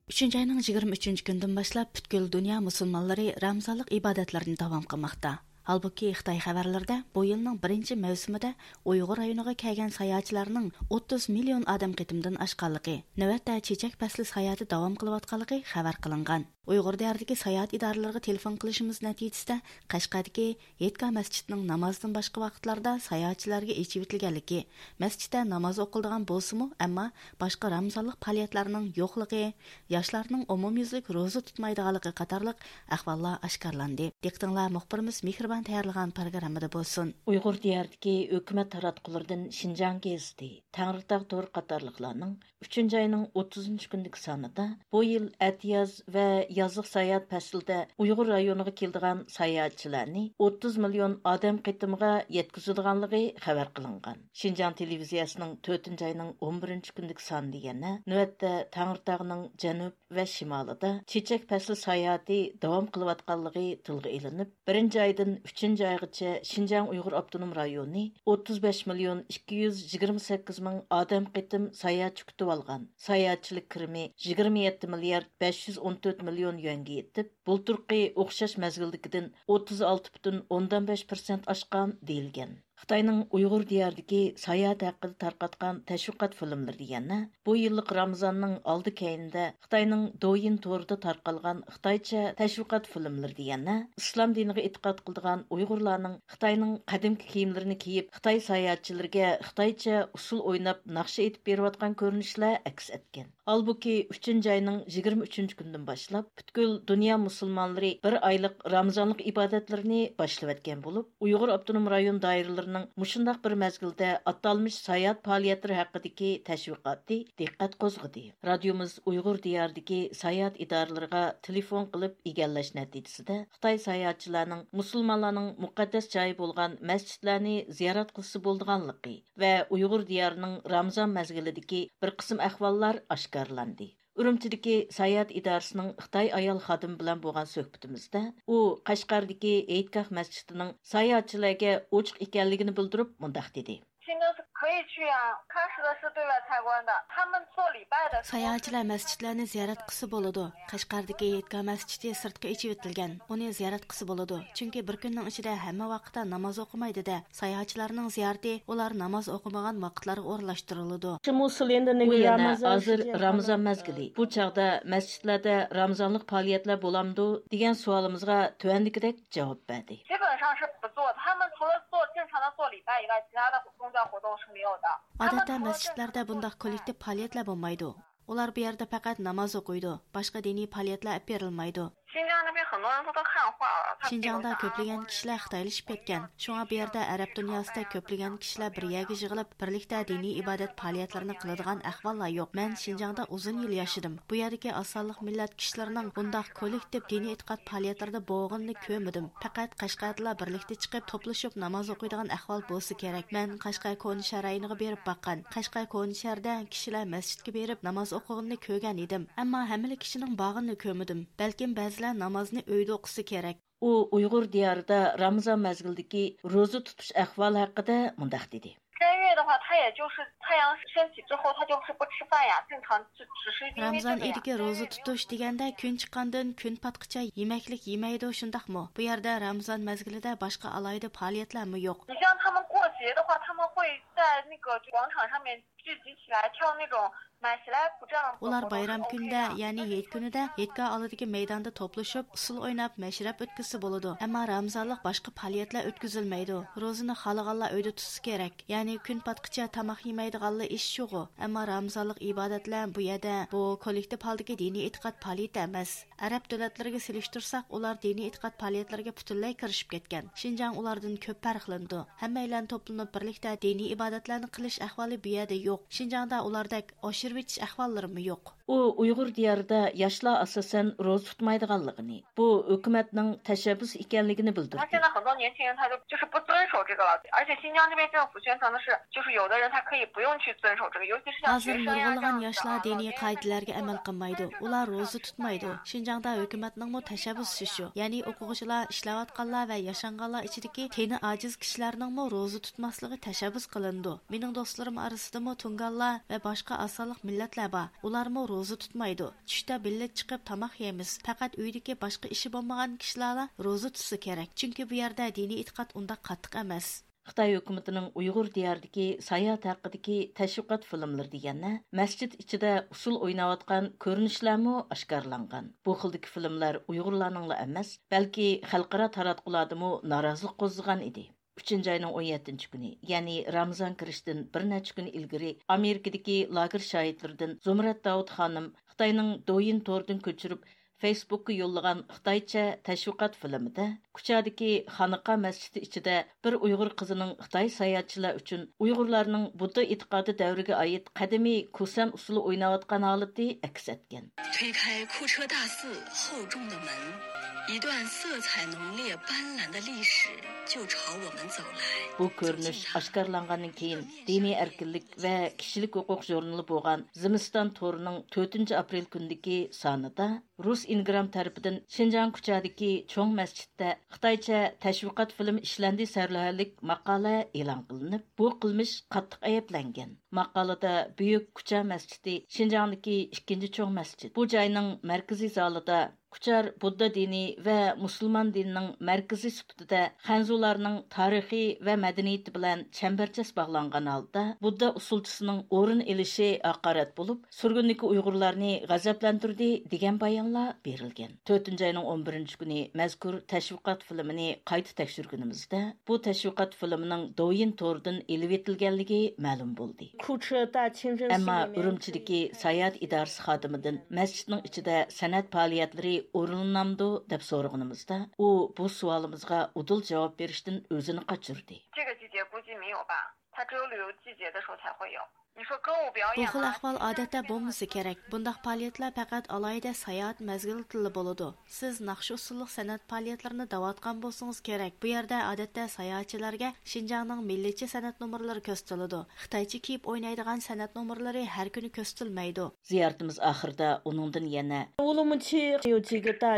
ئۈچىنچى ئاينىڭ يىگىرمە ئۈچىنچى كۈنىدىن باشلاپ پۈتكۈل دۇنيا مۇسۇلمانلىرى رامزانلىق ئىبادەتلىرىنى داۋام قىلماقتا. ھالبۇكى، خىتاي خەۋەرلىرىدە بۇ يىلنىڭ بىرىنچى مەۋسۇمىدە ئۇيغۇر رايونىغا كەلگەن ساياھەتچىلەرنىڭ ئوتتۇز مىليون ئادەم قېتىمدىن ئاشقانلىقى، نۆۋەتتە چېچەك پەسلى ساياھىتى داۋام قىلىۋاتقانلىقى خەۋەر قىلىنغان. ئۇيغۇر دىيارىدىكى ساياھەت ئىدارىلىرىغا تېلېفون قىلىشىمىز نەتىجىسىدە، قەشقەردىكى ھېيتگاھ مەسچىتىنىڭ نامازدىن باشقا ۋاقىتلاردا ساياھەتچىلەرگە ئېچىۋېتىلگەنلىكى، مەسچىتتە ناماز ئوقۇلىدىغان بولسىمۇ، ئەمما باشقا رامزانلىق پائالىيەتلەرنىڭ يوقلۇقى، ياشلارنىڭ ئومۇميۈزلۈك روزا تۇتمايدىغانلىقى قاتارلىق ئەھۋاللار ئاشكارىلاندى. دىققىتىڭلار مۇخبىرىمىز مېھرىبان تەييارلىغان پروگراممىدا بولسۇن. ئۇيغۇر دىيارىدىكى ھۆكۈمەت تاراتقۇلىرىدىن شىنجاڭ گېزىتى، تەڭرىتاغ تورى قاتارلىقلارنىڭ ئۈچىنچى ئاينىڭ ئوتتۇزىنچى كۈنىدىكى سانىدا بۇ يىل ئەتىياز ۋە يازلىق ساياھەت پەسلىدە ئۇيغۇر رايونىغا كېلىدىغان ساياھەتچىلەرنى ئوتتۇز مىليون ئادەم قېتىمىغا يەتكۈزىدىغانلىقى خەۋەر قىلىنغان. شىنجاڭ تېلېۋىزىيەسىنىڭ تۆتىنچى ئاينىڭ ئون بىرىنچى كۈنىدىكى سانىدا يەنە نۆۋەتتە تەڭرىتاغنىڭ جەنۇب ۋە شىمالىدا چېچەك پەسلى ساياھىتى داۋام قىلىۋاتقانلىقى تىلغا ئېلىنىپ، بىرىنچى ئايدىن ئۈچىنچى ئايغىچە شىنجاڭ ئۇيغۇر ئاپتونوم رايونى ئوتتۇز بەش مىليون ئىككى يۈز يىگىرمە سەككىز مىڭ ئادەم قېتىم ساياھەتچى كۈتۈۋالغان. ساياھەتچىلىك كىرىمى يىگىرمە يەتتە مىليارد بەش يۈز ئون تۆت مىليون يۈەنگە يېتىپ، بۇلتۇرقى ئوخشاش مەزگىلدىكىدىن ئوتتۇز ئالتە پۈتۈن ئوندىن بەش پىرسەنت ئاشقان، دېيىلگەن. خىتاينىڭ ئۇيغۇر دىيارىدىكى ساياھەت ھەققىدە تارقاتقان تەشۋىقات فىلىملىرىدە يەنە بۇ يىللىق رامىزاننىڭ ئالدى كەينىدە خىتاينىڭ دويىن تورىدا تارقالغان خىتايچە تەشۋىقات فىلىملىرىدە يەنە ئىسلام دىنىغا ئېتىقاد قىلىدىغان ئۇيغۇرلارنىڭ خىتاينىڭ قەدىمكى كىيىملىرىنى كىيىپ، خىتاي ساياھەتچىلىرىگە خىتايچە ئۇسسۇل ئويناپ، ناخشا ئېيتىپ بېرىۋاتقان كۆرۈنۈشلەر ئەكس ئەتكەن. ھالبۇكى، ئۈچىنچى ئاينىڭ يىگىرمە ئۈچىنچى كۈنىدىن باشلاپ، پۈتكۈل دۇنيا مۇسۇلمانلىرى بىر ئايلىق رامىزانلىق ئىبادەتلىرىنى باشلىۋەتكەن بولۇپ، ئۇيغۇر ئاپتونوم رايون دائىرىلىرىنىڭ مۇشۇنداق بىر مەزگىلدە ئاتالمىش ساياھەت پائالىيەتلىرى ھەققىدىكى تەشۋىقاتى دىققەت قوزغىدى. رادىيومىز ئۇيغۇر دىيارىدىكى ساياھەت ئىدارىلىرىغا تېلېفون قىلىپ ئىگىلەش نەتىجىسىدە، خىتاي ساياھەتچىلەرنىڭ مۇسۇلمانلارنىڭ مۇقەددەس جايى بولغان مەسچىتلەرنى زىيارەت قىلسا بولىدىغانلىقى، ۋە ئۇيغۇر دىيارىنىڭ رامىزان مەزگىلىدىكى بىر قىسىم ئەھۋاللار ئاشكارىلاندى. ئۈرۈمچىدىكى ساياھەت ئىدارىسىنىڭ خىتاي ئايال خادىمى بىلەن بولغان سۆھبىتىمىزدە، ئۇ قەشقەردىكى ھېيتگاھ مەسچىتىنىڭ ساياھەتچىلەرگە ئوچۇق ئىكەنلىكىنى بىلدۈرۈپ، مۇنداق دېدى. 现在是可以去啊，开始的是对外参观的，他们做礼拜的时候是 ساياھەتچىلەر مەسچىتلەرنى زىيارەت قىلسا بولىدۇ. قەشقەردىكى ھېيتگاھ مەسچىتى سىرتقا ئېچىۋېتىلگەن، ئۇنى زىيارەت قىلسا بولىدۇ، چۈنكى بىر كۈننىڭ ئىچىدە ھەممە ۋاقىتتا ناماز ئوقۇمايدۇ-دە. ساياھەتچىلەرنىڭ زىيارىتى ئۇلار ناماز ئوقۇمىغان ۋاقىتلارغا ئورۇنلاشتۇرۇلىدۇ. ئۇ يەنە، ھازىر رامىزان مەزگىلى، بۇ چاغدا مەسچىتلەردە رامىزانلىق پائالىيەتلەر بولامدۇ؟ دېگەن سوئالىمىزغا تۆۋەندىكىدەك جاۋاب بەردى. 基本上是不做，他们除了做正常的做礼拜以外，其他的宗教活动是没有的。 ئادەتتە مەسچىتلەردە بۇنداق كوللېكتىپ پائالىيەتلەر بولمايدۇ. ئۇلار بۇ يەردە پەقەت ناماز ئوقۇيدۇ، باشقا دىنىي پائالىيەتلەر ئېلىپ بېرىلمەيدۇ. 新疆那边很多人都在汉化了，他们这种 شىنجاڭدا كۆپلىگەن كىشىلەر خىتايلىشىپ كەتكەن. شۇڭا بۇ يەردە ئەرەب دۇنياسىدەك كۆپلىگەن كىشىلەر بىر يەرگە يىغىلىپ، بىرلىكتە دىنىي ئىبادەت پائالىيەتلىرىنى قىلىدىغان ئەھۋاللار يوق. مەن شىنجاڭدا ئۇزۇن يىل ياشىدىم. بۇ يەردىكى ئاز سانلىق مىللەت كىشىلىرىنىڭ بۇنداق كوللېكتىپ دىنىي ئېتىقاد پائالىيەتلىرىدە بولغىنىنى كۆرمىدىم. پەقەت قەشقەردىلا بىرلىكتە چىقىپ توپلىشىپ ناماز ئوقۇيدىغان ئەھۋال بولسا كېرەك. مەن قەشقەر كونا شەھەر رايونىغا بېرىپ باققان. قەشقەر كونا شەھەردە كىشىلەر مەسچىتكە بېرىپ ناماز ئوقۇغىنىنى كۆرگەن ئىدىم. ئەمما ھەممىلا كىشىنىڭ بارغىنىنى كۆرمىدىم. بەلكىم بەزىلەر نامازنى ئۆيدە ئوقۇسا كېرەك. ئۇ ئۇيغۇر دىيارىدا رامىزان مەزگىلىدىكى روزا تۇتۇش ئەھۋالى ھەققىدە مۇنداق دېدى. 斋月的话，他也就是太阳升起之后，他就是不吃饭呀，正常只只是因为这个呀。 رامىزان ئېيىدىكى روزا تۇتۇش دېگەندە، كۈن چىققاندىن كۈن پاتقىچە يېمەكلىك يېمەيدۇ، شۇنداقمۇ؟ بۇ يەردە رامىزان مەزگىلىدە باشقا ئالاھىدە پائالىيەتلەرمۇ يوق. 你像他们过节的话，他们会在那个广场上面聚集起来跳那种买 سلاپ 舞这样子的活动是 ئۇلار بايرام كۈنىدە، يەنى ھېيت كۈنىدە ھېيتگاھ ئالدىدىكى مەيداندا توپلىشىپ، ئۇسسۇل ئويناپ، مەشرەپ ئۆتكۈزسە بولىدۇ. ئەمما رامىزانلىق باشقا پائالىيەتلەر ئۆتكۈزۈلمەيدۇ. روزىنى خالىغانلار ئۆيدە تۇتسا كېرەك. يەنى كۈن پاتقىچە تاماق يېمەيدىغانلار ئىش شۇغۇ. ئەمما رامىزانلىق ئىبادەتلەر بۇ يەردە، بۇ كوللېكتىپ ھالدىكى دىنىي ئېتىقاد پائالىيىتى ئەمەس. ئەرەب دۆلەتلىرىگە سېلىشتۇرساق، ئۇلار دىنىي ئېتىقاد پائالىيەتلىرىگە پۈتۈنلەي كىرىشىپ كەتكەن. شىنجاڭ ئۇلاردىن كۆپ پەرقلىنىدۇ. ھەممەيلەن توپلىنىپ بىرلىكتە دىنىي ئىبادەتلەرنى قىلىش ئەھۋالى بۇ يەردە يوق. شىنجاڭدا ئۇلاردەك ئاشۇرۇۋېتىش ئەھۋاللىرىمۇ يوق. ئۇ ئۇيغۇر دىيارىدا ياشلار ئاساسەن روزا تۇتمايدىغانلىقىنى، بۇ ھۆكۈمەتنىڭ تەشەببۇس ئىكەنلىكىنى بىلدۈردى. 现在很多年轻人他就就是不遵守这个了，而且新疆这边政府宣传的是，就是有的人他可以不用去遵守这个，尤其是像学生呀这样子的啊， ھازىر نۇرغۇنلىغان ياشلار دىنىي قائىدىلەرگە ئەمەل قىلمايدۇ. ئۇلار روزا تۇتمايدۇ. شىنجاڭدا ھۆكۈمەتنىڭمۇ تەشەببۇسى شۇ. يەنى ئوقۇغۇچىلار، ئىشلەۋاتقانلار ۋە ياشانغانلار ئىچىدىكى تېنى ئاجىز كىشىلەرنىڭمۇ روزا تۇتماسلىقى تەشەببۇس قىلىنىدۇ. مېنىڭ دوستلىرىم ئارىسىدىمۇ تۇڭگانلار ۋە باشقا ئاز سانلىق مىللەتلەر بار. ئۇلارمۇ روزا تۇتمايدۇ. چۈشتە بىللە چىقىپ تاماق يەيمىز. پەقەت ئۆيدىكى باشقا ئىشى بولمىغان كىشىلەرلا روزا تۇتسا كېرەك. چۈنكى بۇ يەردە دىنىي ئېتىقاد ئۇنداق قاتتىق ئەمەس. خىتاي ھۆكۈمىتىنىڭ ئۇيغۇر دىيارىدىكى ساياھەت ھەققىدىكى تەشۋىقات فىلىملىرى دېگەندە، مەسچىت ئىچىدە ئۇسسۇل ئويناۋاتقان كۆرۈنۈشلەرمۇ ئاشكارىلانغان. بۇ خىلدىكى فىلىملەر ئۇيغۇرلارنىڭلا ئەمەس، بەلكى خەلقئارا تاراتقۇلاردىمۇ نارازىلىق قوزغىغان ئىدى. ئۈچىنچى ئاينىڭ ئون يەتتىنچى كۈنى، يەنى رامىزان كىرىشتىن بىر نەچچە كۈن ئىلگىرى، ئامېرىكىدىكى لاگېر شاھىتلىرىدىن زۇمرەت داۋۇت خانىم خىتاينىڭ دويىن تورىدىن كۆچۈرۈپ، فېيسبۇكقا يوللىغان خىتايچە تەشۋىقات فىلىمىدا، كۇچادىكى خانىقا مەسچىتى ئىچىدە بىر ئۇيغۇر قىزىنىڭ خىتاي ساياھەتچىلەر ئۈچۈن ئۇيغۇرلارنىڭ بۇددا ئېتىقادى دەۋرىگە ئائىت قەدىمىي كۇسەن ئۇسسۇلى ئويناۋاتقان ھالىتى ئەكس ئەتكەن. 推开库车大寺厚重的门，一段色彩浓烈斑斓的历史就朝我们走来。 بۇ كۆرۈنۈش ئاشكارىلانغاندىن كېيىن، دىنىي ئەركىنلىك ۋە كىشىلىك ھوقۇق ژۇرنىلى بولغان زىمىستان تورىنىڭ تۆتىنچى ئاپرېل كۈنىدىكى سانىدا، رۇس ئىنگرام تەرىپىدىن شىنجاڭ كۇچادىكى چوڭ مەسچىتتە خىتايچە تەشۋىقات فىلىمى ئىشلەندى سەرلەۋھەلىك ماقالە ئېلان قىلىنىپ، بۇ قىلمىش قاتتىق ئەيىبلەنگەن. ماقالىدە بۈيۈك كۇچا مەسچىتى شىنجاڭدىكى ئىككىنچى چوڭ مەسچىت، بۇ جاينىڭ مەركىزىي زالىدا كۇچار بۇددا دىنى ۋە مۇسۇلمان دىنىنىڭ مەركىزى سۈپىتىدە خەنزۇلارنىڭ تارىخى ۋە مەدەنىيىتى بىلەن چەمبەرچاس باغلانغان ھالدا، بۇددا ئۇسسۇلچىسىنىڭ ئورۇن ئېلىشى ھاقارەت بولۇپ، سۈرگۈندىكى ئۇيغۇرلارنى غەزەپلەندۈردى، دېگەن بايانلار بېرىلگەن. تۆتىنچى ئاينىڭ ئون بىرىنچى كۈنى مەزكۇر تەشۋىقات فىلىمىنى قايتا تەكشۈرگىنىمىزدە، بۇ تەشۋىقات فىلىمىنىڭ دوۋيىن تورىدىن ئېلىۋېتىلگەنلىكى مەلۇم بولدى. ئەمما ئۈرۈمچىدىكى ساياھەت ئىدارىسى خادىمىدىن مەسچىتنىڭ ئىچىدە سەنئەت پائالىيەتلىرى ئورۇنلىنامدۇ، دەپ سورىغىنىمىزدا، ئۇ بۇ سوئالىمىزغا ئۇدۇل جاۋاب بېرىشتىن ئۆزىنى قاچۇردى. 这个季节估计没有吧，它只有旅游季节的时候才会有。你说歌舞表演啊， بۇ خىل ئەھۋال ئادەتتە بولمىسا كېرەك. بۇنداق پائالىيەتلەر پەقەت ئالاھىدە ساياھەت مەزگىلىدىلا بولىدۇ. سىز ناخشا ئۇسسۇللۇق سەنئەت پائالىيەتلىرىنى دەۋاتقان بولسىڭىز كېرەك. بۇ يەردە ئادەتتە ساياھەتچىلەرگە شىنجاڭنىڭ مىللىيچە سەنئەت نومۇرلىرى كۆرسىتىلىدۇ. خىتايچە كىيىپ ئوينايدىغان سەنئەت نومۇرلىرى ھەر كۈنى كۆرسىتىلمەيدۇ. زىيارىتىمىز ئاخىرىدا ئۇنىڭدىن يەنە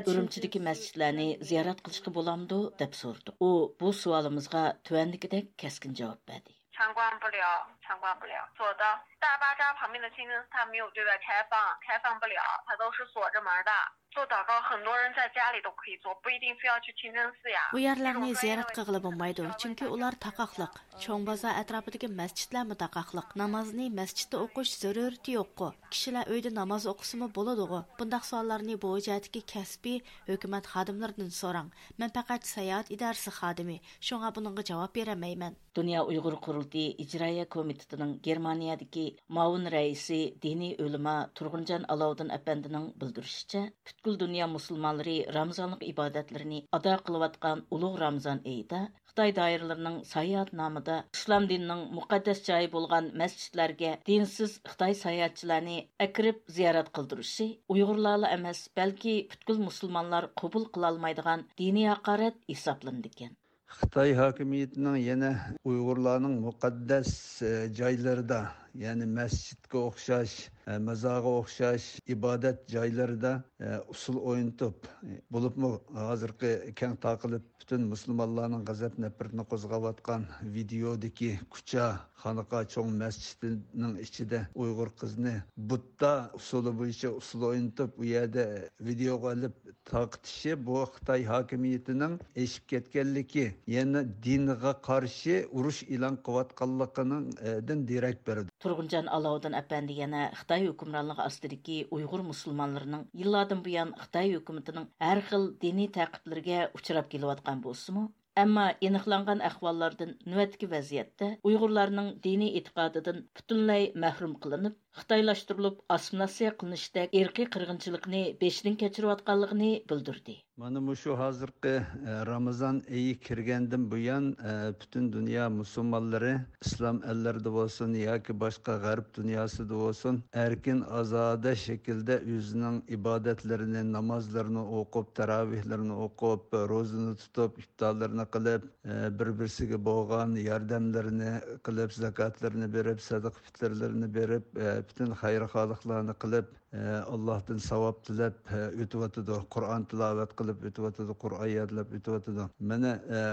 ئۈرۈمچىدىكى مەسچىتلەرنى زىيارەت قىلىشقا بولامدۇ، دەپ سورىدۇق. ئۇ بۇ سوئالىمىزغا تۆۋەندىكىدەك كەسكىن جاۋاب بەردى. 参观不了，参观不了。索道大巴扎旁边的清真寺，它没有对外开放，开放不了，它都是锁着门的。做祷告，很多人在家里都可以做，不一定非要去清真寺呀。 ئۇ يەرلەرنى زىيارەت قىلغىلى بولمايدۇ، چۈنكى ئۇلار تاقاقلىق. چوڭ بازار ئەتراپىدىكى مەسچىتلەرمۇ تاقاقلىق. نامازنى مەسچىتتە ئوقۇش زۆرۈرىيىتى يوققۇ؟ كىشىلەر ئۆيدە ناماز ئوقۇسىمۇ بولىدىغۇ؟ بۇنداق سوئاللارنى بۇ جەھەتتىكى كەسپىي ھۆكۈمەت خادىملىرىدىن سوراڭ. مەن پەقەت ساياھەت ئىدارىسى خادىمى، شۇڭا بۇنىڭغا جاۋاب بېرەلمەيمەن. دۇنيا ئۇيغۇر قۇرۇلتىيى ئىجرائىيە كومىتېتىنىڭ گېرمانىيەدىكى مۇئاۋىن رەئىسى، دىنىي ئۆلىما تۇرغۇنجان ئالاۋۇدىن ئەپەندىنىڭ بىلدۈرۈشىچە، پۈتكۈل دۇنيا مۇسۇلمانلىرى رامىزانلىق ئىبادەتلىرىنى ئادا قىلىۋاتقان ئۇلۇغ رامىزان ئېيىدا خىتاي دائىرىلىرىنىڭ ساياھەت نامىدا ئىسلام دىنىنىڭ مۇقەددەس جايى بولغان مەسچىتلەرگە دىنسىز خىتاي ساياھەتچىلەرنى ئەكىرىپ زىيارەت قىلدۇرۇشى ئۇيغۇرلارلا ئەمەس، بەلكى پۈتكۈل مۇسۇلمانلار قوبۇل قىلالمايدىغان دىنىي ھاقارەت ھېسابلىنىدىكەن. خىتاي ھاكىمىيىتىنىڭ يەنە ئۇيغۇرلارنىڭ مۇقەددەس، ئە، جايلىرىدا، يەنى مەسچىتكە ئوخشاش، ئە، مازارغا ئوخشاش ئىبادەت جايلىرىدا، ئە، ئۇسسۇل ئوينىتىپ، بولۇپمۇ ھازىرقى كەڭ تارقىلىپ پۈتۈن مۇسۇلمانلارنىڭ غەزەپ نەپرىتىنى قوزغاۋاتقان ۋىدېئودىكى كۇچا خانىقا چوڭ مەسچىتىنىڭ ئىچىدە ئۇيغۇر قىزىنى بۇددا ئۇسۇلى بويىچە ئۇسسۇل ئوينىتىپ، ئۇ يەردە ۋىدېئوغا ئېلىپ تارقىتىشى، بۇ خىتاي ھاكىمىيىتىنىڭ ئېشىپ كەتكەنلىكى، يەنى دىنغا قارشى ئۇرۇش ئېلان قىلىۋاتقانلىقىنىڭ، ئە، دىن دېرەك بېرىدۇ. تۇرغۇنجان ئالاۋۇدىن ئەپەندى يەنە خىتاي ھۆكۈمرانلىقى ئاستىدىكى ئۇيغۇر مۇسۇلمانلىرىنىڭ يىللاردىن بۇيان خىتاي ھۆكۈمىتىنىڭ ھەر خىل دىنىي تەقىبلىرىگە ئۇچراپ كېلىۋاتقان بولسىمۇ، ئەمما ئېنىقلانغان ئەھۋاللاردىن نۆۋەتتىكى ۋەزىيەتتە ئۇيغۇرلارنىڭ دىنىي ئېتىقادىدىن پۈتۈنلەي مەھرۇم قىلىنىپ، خىتايلاشتۇرۇلۇپ ئاسسىمىلياتسىيە قىلىنىشتەك ئىرقىي قىرغىنچىلىقنى بېشىدىن كەچۈرۈۋاتقانلىقىنى بىلدۈردى. مانا مۇشۇ ھازىرقى، ئە، رامىزان ئېيى كىرگەندىن بۇيان، ئە، پۈتۈن دۇنيا مۇسۇلمانلىرى ئىسلام ئەللىرىدە بولسۇن ياكى باشقا غەرب دۇنياسىدا بولسۇن، ئەركىن ئازادە شەكىلدە ئۆزىنىڭ ئىبادەتلىرىنى، نامازلىرىنى ئوقۇپ، تاراۋىھلىرىنى ئوقۇپ، روزىنى تۇتۇپ، ئىپتارلىرىنى قىلىپ، ئە، بىر-بىرسىگە بولغان ياردەملىرىنى قىلىپ، زاكاتلىرىنى بېرىپ، سەدىقە پىتىرلىرىنى بېرىپ، ئە، پۈتۈن خەير-خالىقلارنى قىلىپ، ئاللاھتىن ساۋاب تىلەپ ئۆتۈۋاتىدۇ، قۇرئان تىلاۋەت قىلىپ ئۆتۈۋاتىدۇ، قۇرئان يادلاپ ئۆتۈۋاتىدۇ. مانا،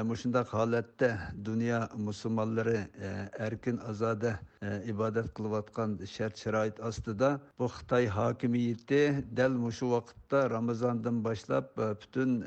مۇشۇنداق ھالەتتە دۇنيا مۇسۇلمانلىرى ئەركىن ئازادە ئىبادەت قىلىۋاتقان شەرت-شارائىت ئاستىدا، بۇ خىتاي ھاكىمىيىتى دەل مۇشۇ ۋاقىتتا رامىزاندىن باشلاپ پۈتۈن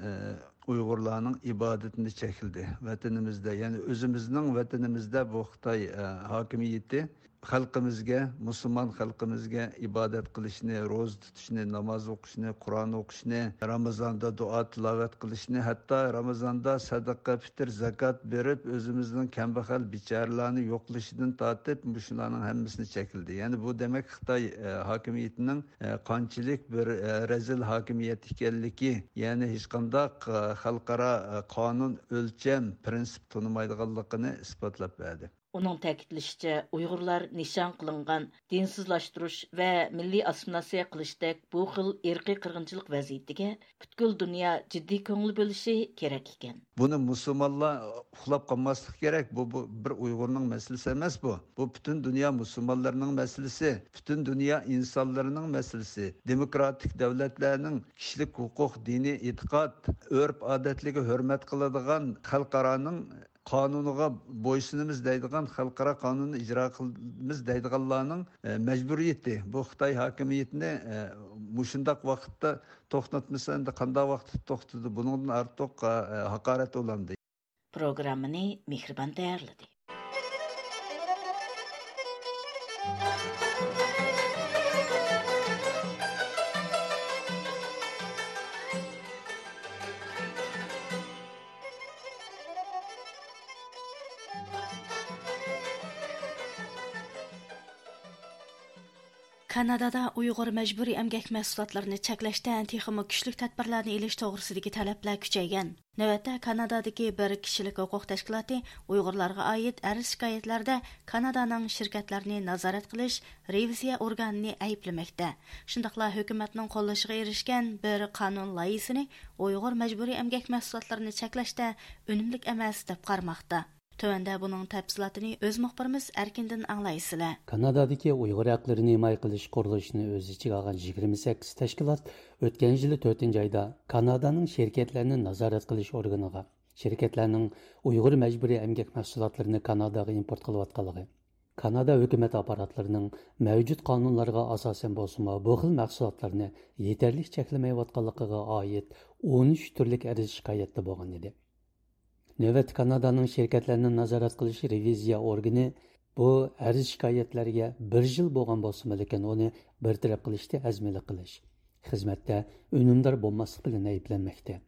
ئۇيغۇرلارنىڭ ئىبادىتىنى چەكلىدى. ۋەتىنىمىزدە، يەنى ئۆزىمىزنىڭ ۋەتىنىمىزدە بۇ خىتاي ھاكىمىيىتى خەلقىمىزگە، مۇسۇلمان خەلقىمىزگە ئىبادەت قىلىشنى، روزا تۇتۇشنى، ناماز ئوقۇشنى، قۇرئان ئوقۇشنى، رامىزاندا دۇئا تىلاۋەت قىلىشنى، ھەتتا رامىزاندا سەدىقە، پىتىر، زاكات بېرىپ، ئۆزىمىزنىڭ كەمبەغەل، بىچارىلارنى يوقلىشىدىن تارتىپ، مۇشۇلارنىڭ ھەممىسىنى چەكلىدى. يەنى بۇ دېمەك خىتاي، ئە، ھاكىمىيىتىنىڭ، ئە، قانچىلىك بىر، ئە، رەزىل ھاكىمىيەت ئىكەنلىكى، يەنى ھېچقانداق، ئە، خەلقئارا، ئە، قانۇن، ئۆلچەم، پىرىنسىپ تونۇمايدىغانلىقىنى ئىسپاتلاپ بەردى. ئۇنىڭ تەكىتلىشىچە، ئۇيغۇرلار نىشان قىلىنغان دىنسىزلاشتۇرۇش ۋە مىللىي ئاسسىمىلياتسىيە قىلىشتەك بۇ خىل ئىرقىي قىرغىنچىلىق ۋەزىيىتىگە پۈتكۈل دۇنيا جىددىي كۆڭۈل بۆلۈشى كېرەك ئىكەن. بۇنى مۇسۇلمانلار ئۇخلاپ قالماسلىقى كېرەك. بۇ، بۇ بىر ئۇيغۇرنىڭ مەسىلىسى ئەمەس بۇ. بۇ پۈتۈن دۇنيا مۇسۇلمانلىرىنىڭ مەسىلىسى، پۈتۈن دۇنيا ئىنسانلىرىنىڭ مەسىلىسى. دېموكراتىك دۆلەتلەرنىڭ كىشىلىك ھوقۇق، دىنىي ئېتىقاد، ئۆرپ-ئادەتلىرىگە ھۆرمەت قىلىدىغان خەلقئارانىڭ قانۇنىغا بويسۇنىمىز دەيدىغان، خەلقئارا قانۇننى ئىجرا قىلىمىز دەيدىغانلارنىڭ، ئە، مەجبۇرىيىتى. بۇ خىتاي ھاكىمىيىتىنى، ئە، مۇشۇنداق ۋاقىتتا توختاتمىسا، ئەمدى قانداق ۋاقىتتا توختىدى؟ بۇنىڭدىن ئارتۇق، ئە، ھاقارەت بولامدۇ؟ پروگراممىنى مېھرىبان تەييارلىدى. كانادادا ئۇيغۇر مەجبۇرىي ئەمگەك مەھسۇلاتلىرىنى چەكلەشتە تېخىمۇ كۈچلۈك تەدبىرلەرنى ئېلىش توغرىسىدىكى تەلەپلەر كۈچەيگەن. نۆۋەتتە كانادادىكى بىر كىشىلىك ھوقۇق تەشكىلاتى ئۇيغۇرلارغا ئائىت ئەرز-شىكايەتلەردە كانادانىڭ شىركەتلەرنى نازارەت قىلىش رېۋىزىيە ئورگانىنى ئەيىبلىمەكتە. شۇنداقلا ھۆكۈمەتنىڭ قوللىشىغا ئېرىشكەن بىر قانۇن لايىھىسىنى ئۇيغۇر مەجبۇرىي ئەمگەك مەھسۇلاتلىرىنى چەكلەشتە ئۈنۈملۈك ئەمەس دەپ قارىماقتا. تۆۋەندە بۇنىڭ تەپسىلاتىنى ئۆز مۇخبىرىمىز ئەركىندىن ئاڭلايسىلەر. كانادادىكى ئۇيغۇر ھەقلىرىنى ھىمايە قىلىش قۇرۇلۇشىنى ئۆز ئىچىگە ئالغان يىگىرمە سەككىز تەشكىلات ئۆتكەن يىلى تۆتىنچى ئايدا كانادانىڭ شىركەتلەرنى نازارەت قىلىش ئورگىنىغا شىركەتلەرنىڭ ئۇيغۇر مەجبۇرىي ئەمگەك مەھسۇلاتلىرىنى كاناداغا ئىمپورت قىلىۋاتقانلىقى، كانادا ھۆكۈمەت ئاپپاراتلىرىنىڭ مەۋجۇت قانۇنلارغا ئاساسەن بولسىمۇ، بۇ خىل مەھسۇلاتلارنى يېتەرلىك چەكلىمەيۋاتقانلىقىغا ئائىت ئون ئۈچ تۈرلۈك ئەرز شىكايەتتە بولغان ئىدى. نۆۋەتتە كانادانىڭ شىركەتلەرنى نازارەت قىلىش رېۋىزىيە ئورگىنى بۇ ئەرز شىكايەتلەرگە بىر يىل بولغان بولسىمۇ، لېكىن ئۇنى بىر تەرەپ قىلىشتا ھەزىملىك قىلىش، خىزمەتتە ئۈنۈمدار بولماسلىق بىلەن ئەيىبلەنمەكتە.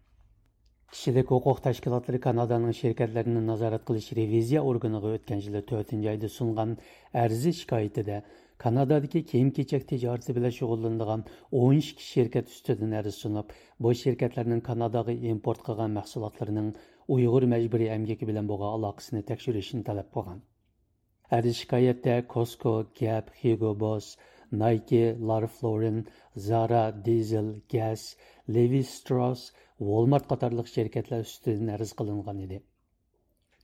كىشىلىك ھوقۇق تەشكىلاتلىرى كانادانىڭ شىركەتلەرنى نازارەت قىلىش رېۋىزىيە ئورگىنىغا ئۆتكەن يىلى تۆتىنچى ئايدا سۇنغان ئەرز شىكايىتىدە، كانادادىكى كىيىم-كېچەك تىجارىتى بىلەن شۇغۇللىنىدىغان ئون ئىككى شىركەت ئۈستىدىن ئەرز سۇنۇپ، بۇ شىركەتلەرنىڭ كاناداغا ئىمپورت قىلغان مەھسۇلاتلىرىنىڭ ئۇيغۇر مەجبۇرىي ئەمگىكى بىلەن بولغان ئالاقىسىنى تەكشۈرۈشنى تەلەپ قىلغان. ئەرز شىكايەتتە كوسكو، گەپ، ھيۇگو بوس، نايكى، لارف لورېن، زارا، دىزېل، گەس، لېۋى ستراس، ۋولمارت قاتارلىق شىركەتلەر ئۈستىدىن ئەرز قىلىنغان ئىدى.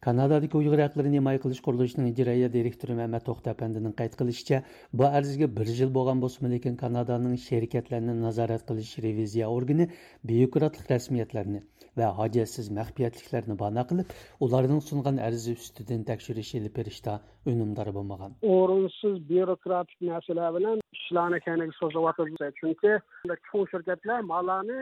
كانادادىكى ئۇيغۇر ھەقلىرىنى ھىمايە قىلىش قۇرۇلۇشىنىڭ ئىجرائىيە دىرېكتورى مەمەت توختى ئەپەندىنىڭ قەيت قىلىشىچە، بۇ ئەرزگە بىر يىل بولغان بولسىمۇ، لېكىن كانادانىڭ شىركەتلەرنى نازارەت قىلىش رېۋىزىيە ئورگىنى بيۇروكراتلىق رەسمىيەتلەرنى ۋە ھاجەتسىز مەخپىيەتلىكلەرنى باھانە قىلىپ، ئۇلارنىڭ سۇنغان ئەرزى ئۈستىدىن تەكشۈرۈش ئېلىپ بېرىشتا ئۈنۈمدار بولمىغان. ئورۇنسىز بيۇروكراتىك مەسىلە بىلەن ئىشلارنى كەينىگە سوزۇۋاتىدۇ. چۈنكى چوڭ شىركەتلەر ماللارنى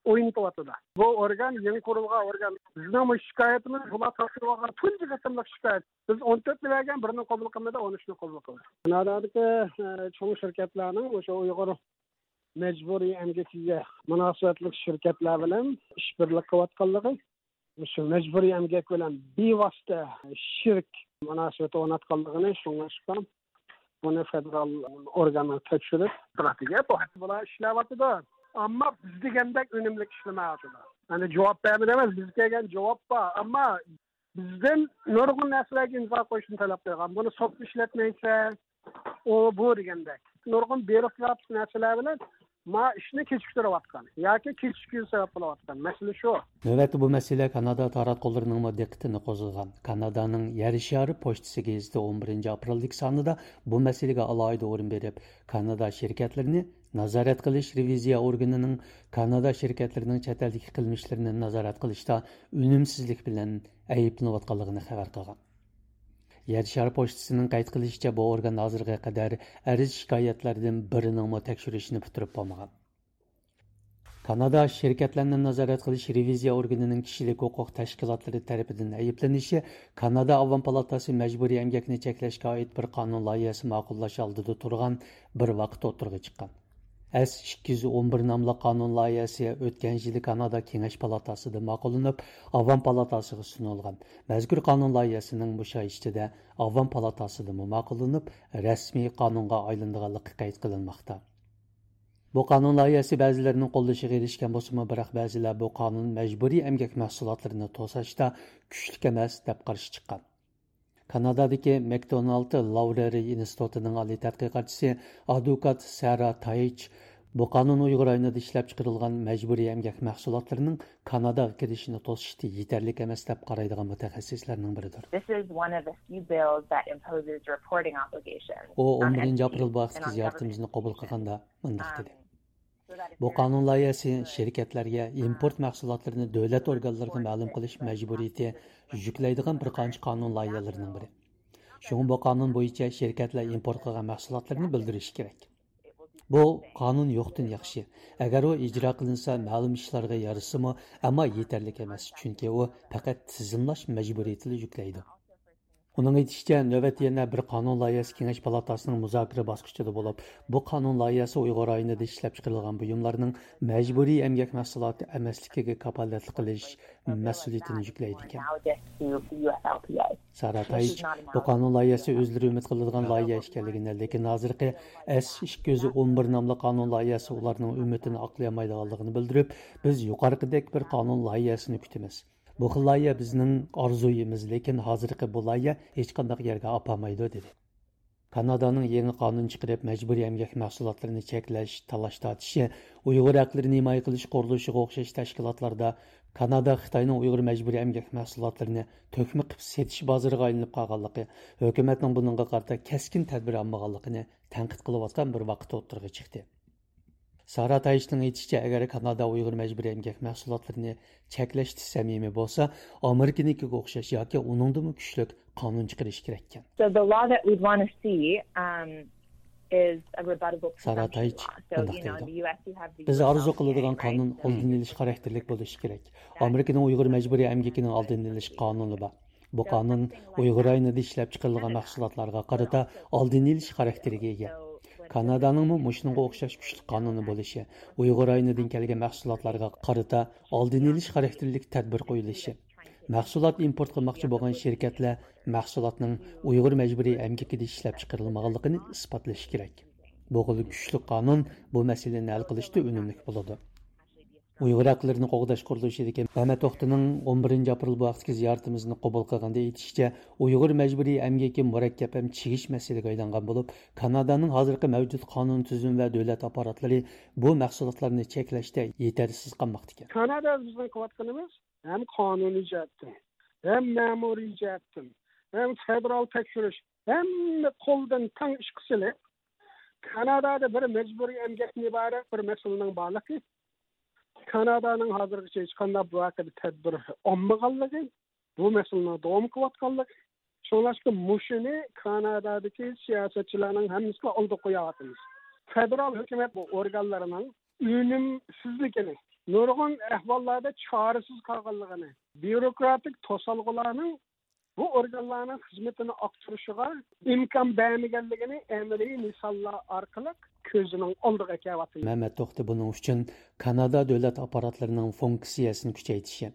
ئوينىتىۋاتىدۇ. بۇ ئورگان يېڭى قۇرۇلغان ئورگان. بىزنىڭ بۇ شىكايىتىمىز بۇلار تاپشۇرۇۋالغان تۇنجى قېتىملىق شىكايەت. بىز ئون تۆتنى بەرگەن، بىرنى قوبۇل قىلمىدى، ئون ئۈچنى قوبۇل قىلدى. كانادادىكى، ئە، چوڭ شىركەتلەرنىڭ ئوشۇ ئۇيغۇر مەجبۇرىي ئەمگىكىگە مۇناسىۋەتلىك شىركەتلەر بىلەن ئىشبىرلىك قىلىۋاتقانلىقى، مۇشۇ مەجبۇرىي ئەمگەك بىلەن بىۋاسىتە شېرىك مۇناسىۋەت ئورناتقانلىقىنى شۇڭلاشقان بۇنى فېدېرال ئورگانلار تەكشۈرۈپ تۇراتىدۇ. بۇ ھەقتە بۇلار ئىشلەۋاتىدۇ. ئەمما بىز دېگەندەك ئۈنۈملۈك ئىشلىمەيۋاتىدۇ. يەنى جاۋاب بەرمىدى ئەمەس، بىز كەلگەن جاۋاب بار. ئەمما بىزدىن نۇرغۇن نەرسىلەرگە ئىمزا قويۇشنى تەلەپ قىلغان. بۇنى سوتتا ئىشلەتمەيسەن، ئۇ بۇ دېگەندەك. نۇرغۇن بيۇروكراتىك نەرسىلەر بىلەن ما ئىشنى كېچىكتۈرۈۋاتقان ياكى كېچىككۈزۈش سەۋەب بولۇۋاتقان مەسىلە شۇ. نۆۋەتتە بۇ مەسىلە كانادا تاراتقۇلىرىنىڭمۇ دىققىتىنى قوزغىغان. كانادانىڭ يەر شارى پوچتىسى گېزىتى ئون بىرىنچى ئاپرېلدىكى سانىدا بۇ مەسىلىگە ئالاھىدە ئورۇن بېرىپ، كانادا شىركەتلىرىنى نازارەت قىلىش رېۋىزىيە ئورگىنىنىڭ كانادا شىركەتلىرىنىڭ چەت ئەلدىكى قىلمىشلىرىنى نازارەت قىلىشتا ئۈنۈمسىزلىك بىلەن ئەيىبلىنىۋاتقانلىقىنى خەۋەر قىلغان. يەر شارى پوچتىسىنىڭ قەيت قىلىشىچە، بۇ ئورگان ھازىرغا قەدەر ئەرز شىكايەتلەردىن بىرىنىڭمۇ تەكشۈرۈشىنى پۈتتۈرۈپ بولمىغان. كانادا شىركەتلەرنى نازارەت قىلىش رېۋىزىيە ئورگىنىنىڭ كىشىلىك ھوقۇق تەشكىلاتلىرى تەرىپىدىن ئەيىبلىنىشى كانادا ئاۋام پالاتاسى مەجبۇرىي ئەمگەكنى چەكلەشكە ئائىت بىر قانۇن لايىھەسى ماقۇللاش ئالدىدا تۇرغان بىر ۋاقىت ئوتتۇرىغا چىققان. ئەس ئىككى يۈز ئون بىر ناملىق قانۇن لايىھەسى ئۆتكەن يىلى كانادا كېڭەش پالاتاسىدا ماقۇللىنىپ، ئاۋام پالاتاسىغا سۇنۇلغان. مەزكۇر قانۇن لايىھەسىنىڭ مۇشۇ ئاي ئىچىدە ئاۋام پالاتاسىدىمۇ ماقۇللىنىپ، رەسمىي قانۇنغا ئايلىنىدىغانلىقى قەيت قىلىنماقتا. بۇ قانۇن لايىھەسى بەزىلەرنىڭ قوللىشىغا ئېرىشكەن بولسىمۇ، بىراق بەزىلەر بۇ قانۇن مەجبۇرىي ئەمگەك مەھسۇلاتلىرىنى توساشتا كۈچلۈك ئەمەس دەپ قارشى چىققان. كانادادىكى ماكدونالد لاۋرېرى ئىنستىتۇتىنىڭ ئالىي تەتقىقاتچىسى، ئادۋوكات سارا تايچ بۇ قانۇن ئۇيغۇر رايونىدا ئىشلەپچىقىرىلغان مەجبۇرىي ئەمگەك مەھسۇلاتلىرىنىڭ كاناداغا كىرىشىنى توسۇشتا يېتەرلىك ئەمەس دەپ قارايدىغان مۇتەخەسسىسلەرنىڭ بىرىدۇر. This is one of the few bills that imposes reporting obligations ئۇ on ئون بىرىنچى ئاپرېل بۇ ھەقتىكى زىيارىتىمىزنى قوبۇل قىلغاندا مۇنداق دېدى: بۇ قانۇن لايىھەسى شىركەتلەرگە ئىمپورت مەھسۇلاتلىرىنى دۆلەت ئورگانلىرىغا مەلۇم قىلىش مەجبۇرىيىتى يۈكلەيدىغان بىر قانچە قانۇن لايىھەلىرىنىڭ بىرى. شۇڭا بۇ قانۇن بويىچە شىركەتلەر ئىمپورت قىلغان مەھسۇلاتلىرىنى بىلدۈرۈشى كېرەك. بۇ قانۇن يوقتىن ياخشى. ئەگەر ئۇ ئىجرا قىلىنسا، مەلۇم ئىشلارغا يارىسىمۇ، ئەمما يېتەرلىك ئەمەس، چۈنكى ئۇ پەقەت تىزىملاش مەجبۇرىيىتىلا يۈكلەيدۇ. ئۇنىڭ ئېيتىشىچە، نۆۋەتتە يەنە بىر قانۇن لايىھەسى كېڭەش پالاتاسىنىڭ مۇزاكىرە باسقۇچىدا بولۇپ، بۇ قانۇن لايىھەسى ئۇيغۇر رايونىدا ئىشلەپچىقىرىلغان بۇيۇملارنىڭ مەجبۇرىي ئەمگەك مەھسۇلاتى ئەمەسلىكىگە كاپالەتلىك قىلىش مەسئۇلىيىتىنى يۈكلەيدىكەن. سارا تايچ بۇ قانۇن لايىھەسى ئۆزلىرى ئۈمىد قىلىدىغان لايىھە ئىكەنلىكىنى، لېكىن ھازىرقى ئەس ئىككى يۈز ئون بىر ناملىق قانۇن لايىھەسى ئۇلارنىڭ ئۈمىدىنى ئاقلىيالمايدىغانلىقىنى بىلدۈرۈپ، بىز يۇقىرىقىدەك بىر قانۇن لايىھەسىنى كۈتىمىز. بۇ خىل لايىھە بىزنىڭ ئارزۇيىمىز، لېكىن ھازىرقى بۇ لايىھە ھېچقانداق يەرگە ئاپارمايدۇ، دېدى. كانادانىڭ يېڭى قانۇن چىقىرىپ، مەجبۇرىي ئەمگەك مەھسۇلاتلىرىنى چەكلەش، تالاش-تارتىشى، ئۇيغۇر ھەقلىرىنى ھىمايە قىلىش قۇرۇلۇشىغا ئوخشاش تەشكىلاتلاردا كانادا خىتاينىڭ ئۇيغۇر مەجبۇرىي ئەمگەك مەھسۇلاتلىرىنى تۆكمە قىلىپ سېتىش بازىرىغا ئايلىنىپ قالغانلىقى، ھۆكۈمەتنىڭ بۇنىڭغا قارىتا كەسكىن تەدبىر ئالمىغانلىقىنى تەنقىد قىلىۋاتقان بىر ۋاقىت ئوتتۇرىغا چىقتى. سارا تايچنىڭ ئېيتىشىچە، ئەگەر كانادا ئۇيغۇر مەجبۇرىي ئەمگەك مەھسۇلاتلىرىنى چەكلەشتە سەمىمىي بولسا، ئامېرىكىنىڭكىگە ئوخشاش ياكى ئۇنىڭدىنمۇ كۈچلۈك قانۇن چىقىرىشى كېرەككەن. So the law that we'd want to see, um, is a rebuttable سارا presumption تايچ law. So, مۇنداق you know, دەيدۇ: in the U S you have the بىز ئارزۇ قىلىدىغان قانۇن ئالدىنى ئېلىش خاراكتېرلىك بولۇشى كېرەك. ئامېرىكىنىڭ ئۇيغۇر مەجبۇرىي ئەمگىكىنىڭ ئالدىنى ئېلىش قانۇنى بار. بۇ قانۇن ئۇيغۇر رايونىدا ئىشلەپچىقىرىلغان مەھسۇلاتلارغا قارىتا ئالدىنى ئېلىش خاراكتېرىگە ئىگە. كانادانىڭمۇ مۇشۇنىڭغا ئوخشاش كۈچلۈك قانۇنى بولۇشى، ئۇيغۇر رايونىدىن كەلگەن مەھسۇلاتلارغا قارىتا ئالدىنى ئېلىش خاراكتېرلىك تەدبىر قويۇلۇشى، مەھسۇلات ئىمپورت قىلماقچى بولغان شىركەتلەر مەھسۇلاتنىڭ ئۇيغۇر مەجبۇرىي ئەمگىكىدە ئىشلەپچىقىرىلمىغانلىقىنى ئىسپاتلىشى كېرەك. بۇ خىل كۈچلۈك قانۇن بۇ مەسىلىنى ھەل قىلىشتا ئۈنۈملۈك بولىدۇ. ئۇيغۇر ھەقلىرىنى قوغداش قۇرۇلۇشىدىكى مەمەت توختىنىڭ ئون بىرىنچى ئاپرېل بۇ ھەقتىكى زىيارىتىمىزنى قوبۇل قىلغاندا ئېيتىشىچە، ئۇيغۇر مەجبۇرىي ئەمگىكى مۇرەككەپ ھەم چىگىش مەسىلىگە ئايلانغان بولۇپ، كانادانىڭ ھازىرقى مەۋجۇت قانۇن تۈزۈمى ۋە دۆلەت ئاپپاراتلىرى بۇ مەھسۇلاتلارنى چەكلەشتە يېتەرسىز قالماقتا ئىكەن. كانادا بىزنىڭ قىلىۋاتقىنىمىز ھەم قانۇنىي جەھەتتىن، ھەم مەمۇرىي جەھەتتىن، ھەم فېدېرال تەكشۈرۈش، ھەممە قولدىن تەڭ ئىشقا سېلىپ، كانادادا بىر مەجبۇرىي ئەمگەكتىن ئىبارەت بىر مەسىلىنىڭ بارلىقى، كانادانىڭ ھازىرغىچە ھېچقانداق بۇ ھەققىدە تەدبىر ئالمىغانلىقى، بۇ مەسىلىنىڭ داۋام قىلىۋاتقانلىقى، شۇڭلاشقا مۇشۇنى كانادادىكى سىياسەتچىلەرنىڭ ھەممىسىگە ئالدىغا قويۇۋاتىمىز. فېدېرال ھۆكۈمەت بۇ ئورگانلىرىنىڭ ئۈنۈمسىزلىكىنى، نۇرغۇن ئەھۋاللاردا چارىسىز قالغانلىقىنى، بيۇروكراتىك توسالغۇلارنىڭ بۇ ئورگانلارنىڭ خىزمىتىنى ئاقتۇرۇشىغا ئىمكان بەرمىگەنلىكىنى ئەمەلىي مىساللار ئارقىلىق كۆزىنىڭ ئالدىغا كەلتۈرۈۋاتىمىز. مەمەت توختى بۇنىڭ ئۈچۈن كانادا دۆلەت ئاپپاراتلىرىنىڭ فۇنكسىيەسىنى كۈچەيتىشى،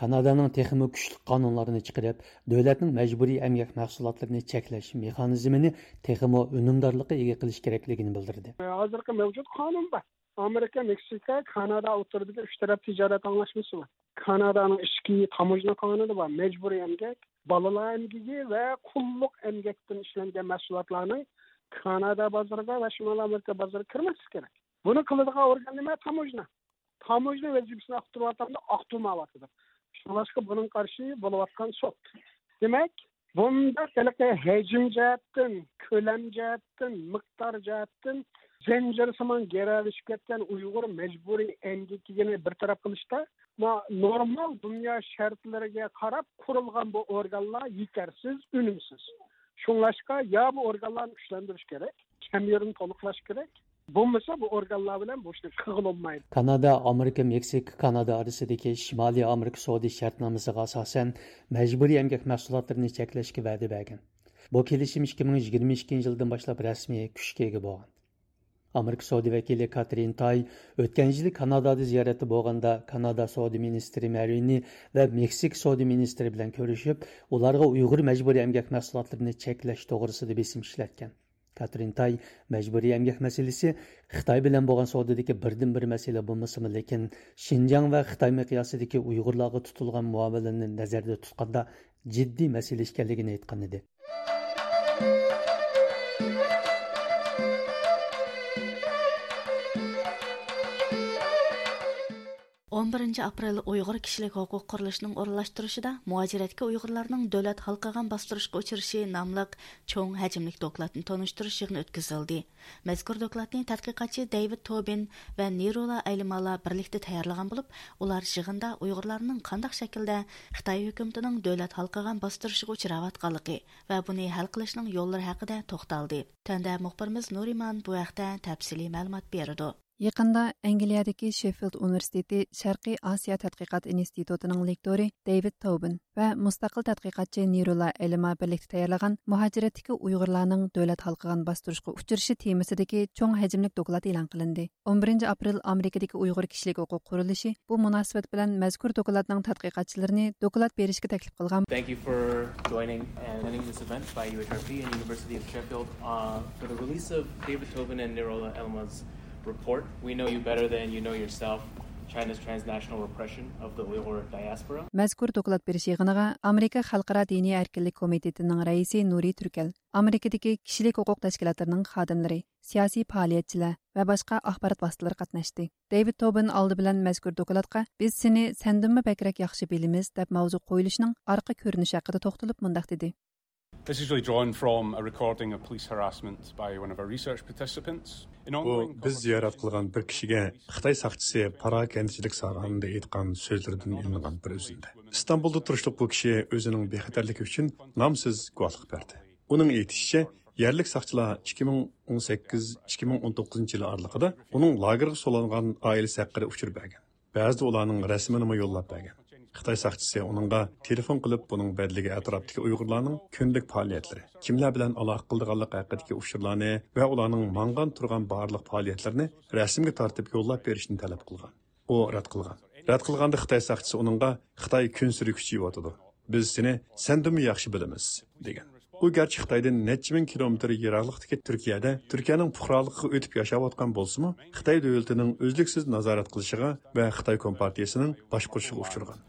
كانادانىڭ تېخىمۇ كۈچلۈك قانۇنلارنى چىقىرىپ، دۆلەتنىڭ مەجبۇرىي ئەمگەك مەھسۇلاتلىرىنى چەكلەش مېخانىزمىنى تېخىمۇ ئۈنۈمدارلىققا ئىگە قىلىش كېرەكلىكىنى بىلدۈردى. ھازىرقى مەۋجۇت قانۇن بار. ئامېرىكا، مېكسىكا، كانادا ئوتتۇرىدىكى ئۈچ تەرەپ تىجارەت ئاڭلاشمىسى بار. كانادانىڭ ئىچكى تاموژنا قانۇنى بار. مەجبۇرىي ئەمگەك، بالىلار ئەمگىكى ۋە قۇللۇق ئەمگەكتىن ئىشلەنگەن مەھسۇلاتلارنىڭ كانادا بازىرىغا ۋە شىمالىي ئامېرىكا بازىرىغا كىرمەسلىكى كېرەك. بۇنى قىلىدىغان ئورگان نېمە؟ تاموژنا. تاموژنا ۋەزىپىسىنى ئاقتۇرۇۋاتامدۇ؟ ئاقتۇرمايۋاتىدۇ. شۇڭلاشقا بۇنىڭغا قارشى بولۇۋاتقان سوت. دېمەك، بۇنداق ھېلىقى ھەجىم جەھەتتىن، كۆلەم جەھەتتىن، مىقدار جەھەتتىن زەنجىرسىمان گىرەلىشىپ كەتكەن ئۇيغۇر مەجبۇرىي ئەمگىكىنى بىر تەرەپ قىلىشتا، ما-، نورمال دۇنيا شەرتلىرىگە قاراپ قۇرۇلغان بۇ ئورگانلار يېتەرسىز، ئۈنۈمسىز. شۇڭلاشقا يا بۇ ئورگانلارنى كۈچلەندۈرۈش كېرەك، كەم يېرىنى تولۇقلاش كېرەك. بولمىسا بۇ ئورگانلار بىلەن بۇ ئىشنى قىلغىلى بولمايدۇ. كانادا، ئامېرىكا، مېكسىكا، كانادا ئارىسىدىكى شىمالىي ئامېرىكا سودا شەرتنامىسىغا ئاساسەن، مەجبۇرىي ئەمگەك مەھسۇلاتلىرىنى چەكلەشكە ۋەدە بەرگەن. بۇ كېلىشىم ئىككى مىڭ يىگىرمە ئىككىنچى يىلدىن باشلاپ رەسمىي كۈچكە ئىگە بولغان. ئامېرىكا سودا ۋەكىلى كاترىن تاي ئۆتكەن يىلى كانادادا زىيارەتتە بولغاندا، كانادا سودا مىنىستىرى مەرۋىنى ۋە مېكسىكا سودا مىنىستىرى بىلەن كۆرۈشۈپ، ئۇلارغا ئۇيغۇر مەجبۇرىي ئەمگەك مەھسۇلاتلىرىنى چەكلەش توغرىسىدا بېسىم ئىشلەتكەن. كاترىن تاي مەجبۇرىي ئەمگەك مەسىلىسى خىتاي بىلەن بولغان سودىدىكى بىردىنبىر مەسىلە بولمىسىمۇ، لېكىن شىنجاڭ ۋە خىتاي مىقياسىدىكى ئۇيغۇرلارغا تۇتۇلغان مۇئامىلىنى نەزەردە تۇتقاندا جىددىي مەسىلە ئىكەنلىكىنى ئېيتقان ئىدى. ئون بىرىنچى ئاپرېل ئۇيغۇر كىشىلىك ھوقۇق قۇرۇلۇشىنىڭ ئورۇنلاشتۇرۇشىدا مۇھاجىرەتتىكى ئۇيغۇرلارنىڭ دۆلەت ھالقىغان باستۇرۇشقا ئۇچرىشى ناملىق چوڭ ھەجىملىك دوكلاتنى تونۇشتۇرۇش يىغىنى ئۆتكۈزۈلدى. مەزكۇر دوكلاتنى تەتقىقاتچى دېۋىد توبىن ۋە نىرولا ئەيلىمالا بىرلىكتە تەييارلىغان بولۇپ، ئۇلار يىغىندا ئۇيغۇرلارنىڭ قانداق شەكىلدە خىتاي ھۆكۈمىتىنىڭ دۆلەت ھالقىغان باستۇرۇشىغا ئۇچراۋاتقانلىقى ۋە بۇنى ھەل قىلىشنىڭ يوللىرى ھەققىدە توختالدى. تۆۋەندە مۇخبىرىمىز نۇرىمان بۇ ھەقتە تەپسىلىي مەلۇمات بېرىدۇ. يېقىندا ئەنگلىيەدىكى شېففىلد ئۇنىۋېرسىتېتى شەرقىي ئاسىيا تەتقىقات ئىنستىتۇتىنىڭ لېكتورى دېۋىد توبىن ۋە مۇستەقىل تەتقىقاتچى نىرولا ئەلىما بىرلىكتە تەييارلىغان مۇھاجىرەتتىكى ئۇيغۇرلارنىڭ دۆلەت ھالقىغان باستۇرۇشقا ئۇچرىشى تېمىسىدىكى چوڭ ھەجىملىك دوكلات ئېلان قىلىندى. ئون بىرىنچى ئاپرېل ئامېرىكىدىكى ئۇيغۇر كىشىلىك ھوقۇق قۇرۇلۇشى بۇ مۇناسىۋەت بىلەن مەزكۇر دوكلاتنىڭ تەتقىقاتچىلىرىنى دوكلات بېرىشكە تەكلىپ قىلغان. Thank you for joining and attending this event by U H R P and University of Sheffield, uh, for the release of David Tobin and Nirola Elma's report. We know you better than you know yourself, China's transnational repression of the Uyghur diaspora. مەزكۇر دوكلات بېرىش يىغىنىغا ئامېرىكا خەلقئارا دىنىي ئەركىنلىك كومىتېتىنىڭ رەئىسى نۇرى تۈركەل، ئامېرىكىدىكى كىشىلىك ھوقۇق تەشكىلاتلىرىنىڭ خادىملىرى، سىياسىي پائالىيەتچىلەر ۋە باشقا ئاخبارات ۋاسىتىلىرى قاتناشتى. دېۋىد توبىن ئالدى بىلەن مەزكۇر دوكلاتقا «بىز سېنى سەندىنمۇ بەكرەك ياخشى بىلىمىز» دەپ ماۋزۇ قويۇلۇشىنىڭ ئارقا كۆرۈنۈشى ھەققىدە توختىلىپ مۇنداق دېدى. This is really drawn from a recording of police harassment by one of our research participants. بۇ بىز زىيارەت قىلغان بىر كىشىگە خىتاي ساقچىسى پاراكەندىچىلىك ساغانىدا ئېيتقان سۆزلىرىدىن ئېلىنغان بىر ئۈزۈندە. ئىستانبۇلدا تۇرۇشلۇق بۇ كىشى ئۆزىنىڭ بىخەتەرلىكى ئۈچۈن نامسىز گۇۋاھلىق بەردى. ئۇنىڭ ئېيتىشىچە، يەرلىك ساقچىلار ئىككى مىڭ ئون سەككىز، ئىككى مىڭ ئون توققۇزىنچى يىل ئارىلىقىدا ئۇنىڭ لاگېرغا سولانغان ئائىلىسى ھەققىدە ئۇچۇر بەرگەن. بەزىدە ئۇلارنىڭ رەسىمىنىمۇ يوللاپ بەرگەن. خىتاي ساقچىسى ئۇنىڭغا تېلېفون قىلىپ، بۇنىڭ بەدىلىگە ئەتراپتىكى ئۇيغۇرلارنىڭ كۈندىلىك پائالىيەتلىرى، كىملەر بىلەن ئالاقە قىلىدىغانلىقى ھەققىدىكى ئۇچۇرلارنى ۋە ئۇلارنىڭ ماڭغان تۇرغان بارلىق پائالىيەتلىرىنى رەسىمگە تارتىپ يوللاپ بېرىشنى تەلەپ قىلغان. ئۇ رەت قىلغان. رەت قىلغاندا خىتاي ساقچىسى ئۇنىڭغا «خىتاي كۈنسېرى كۈچىيىۋاتىدۇ. بىز سېنى سەندىنمۇ ياخشى بىلىمىز» دېگەن. ئۇ گەرچە خىتايدىن نەچچە مىڭ كىلومېتىر يىراقلىقتىكى تۈركىيەدە تۈركىيەنىڭ پۇقرالىقىغا ئۆتۈپ ياشاۋاتقان بولسىمۇ، خىتاي دۆلىتىنىڭ ئۈزلۈكسىز نازارەت قىلىشىغا ۋە خىتاي كومپارتىيىسىنىڭ باشقۇرۇشىغا ئۇچرىغان.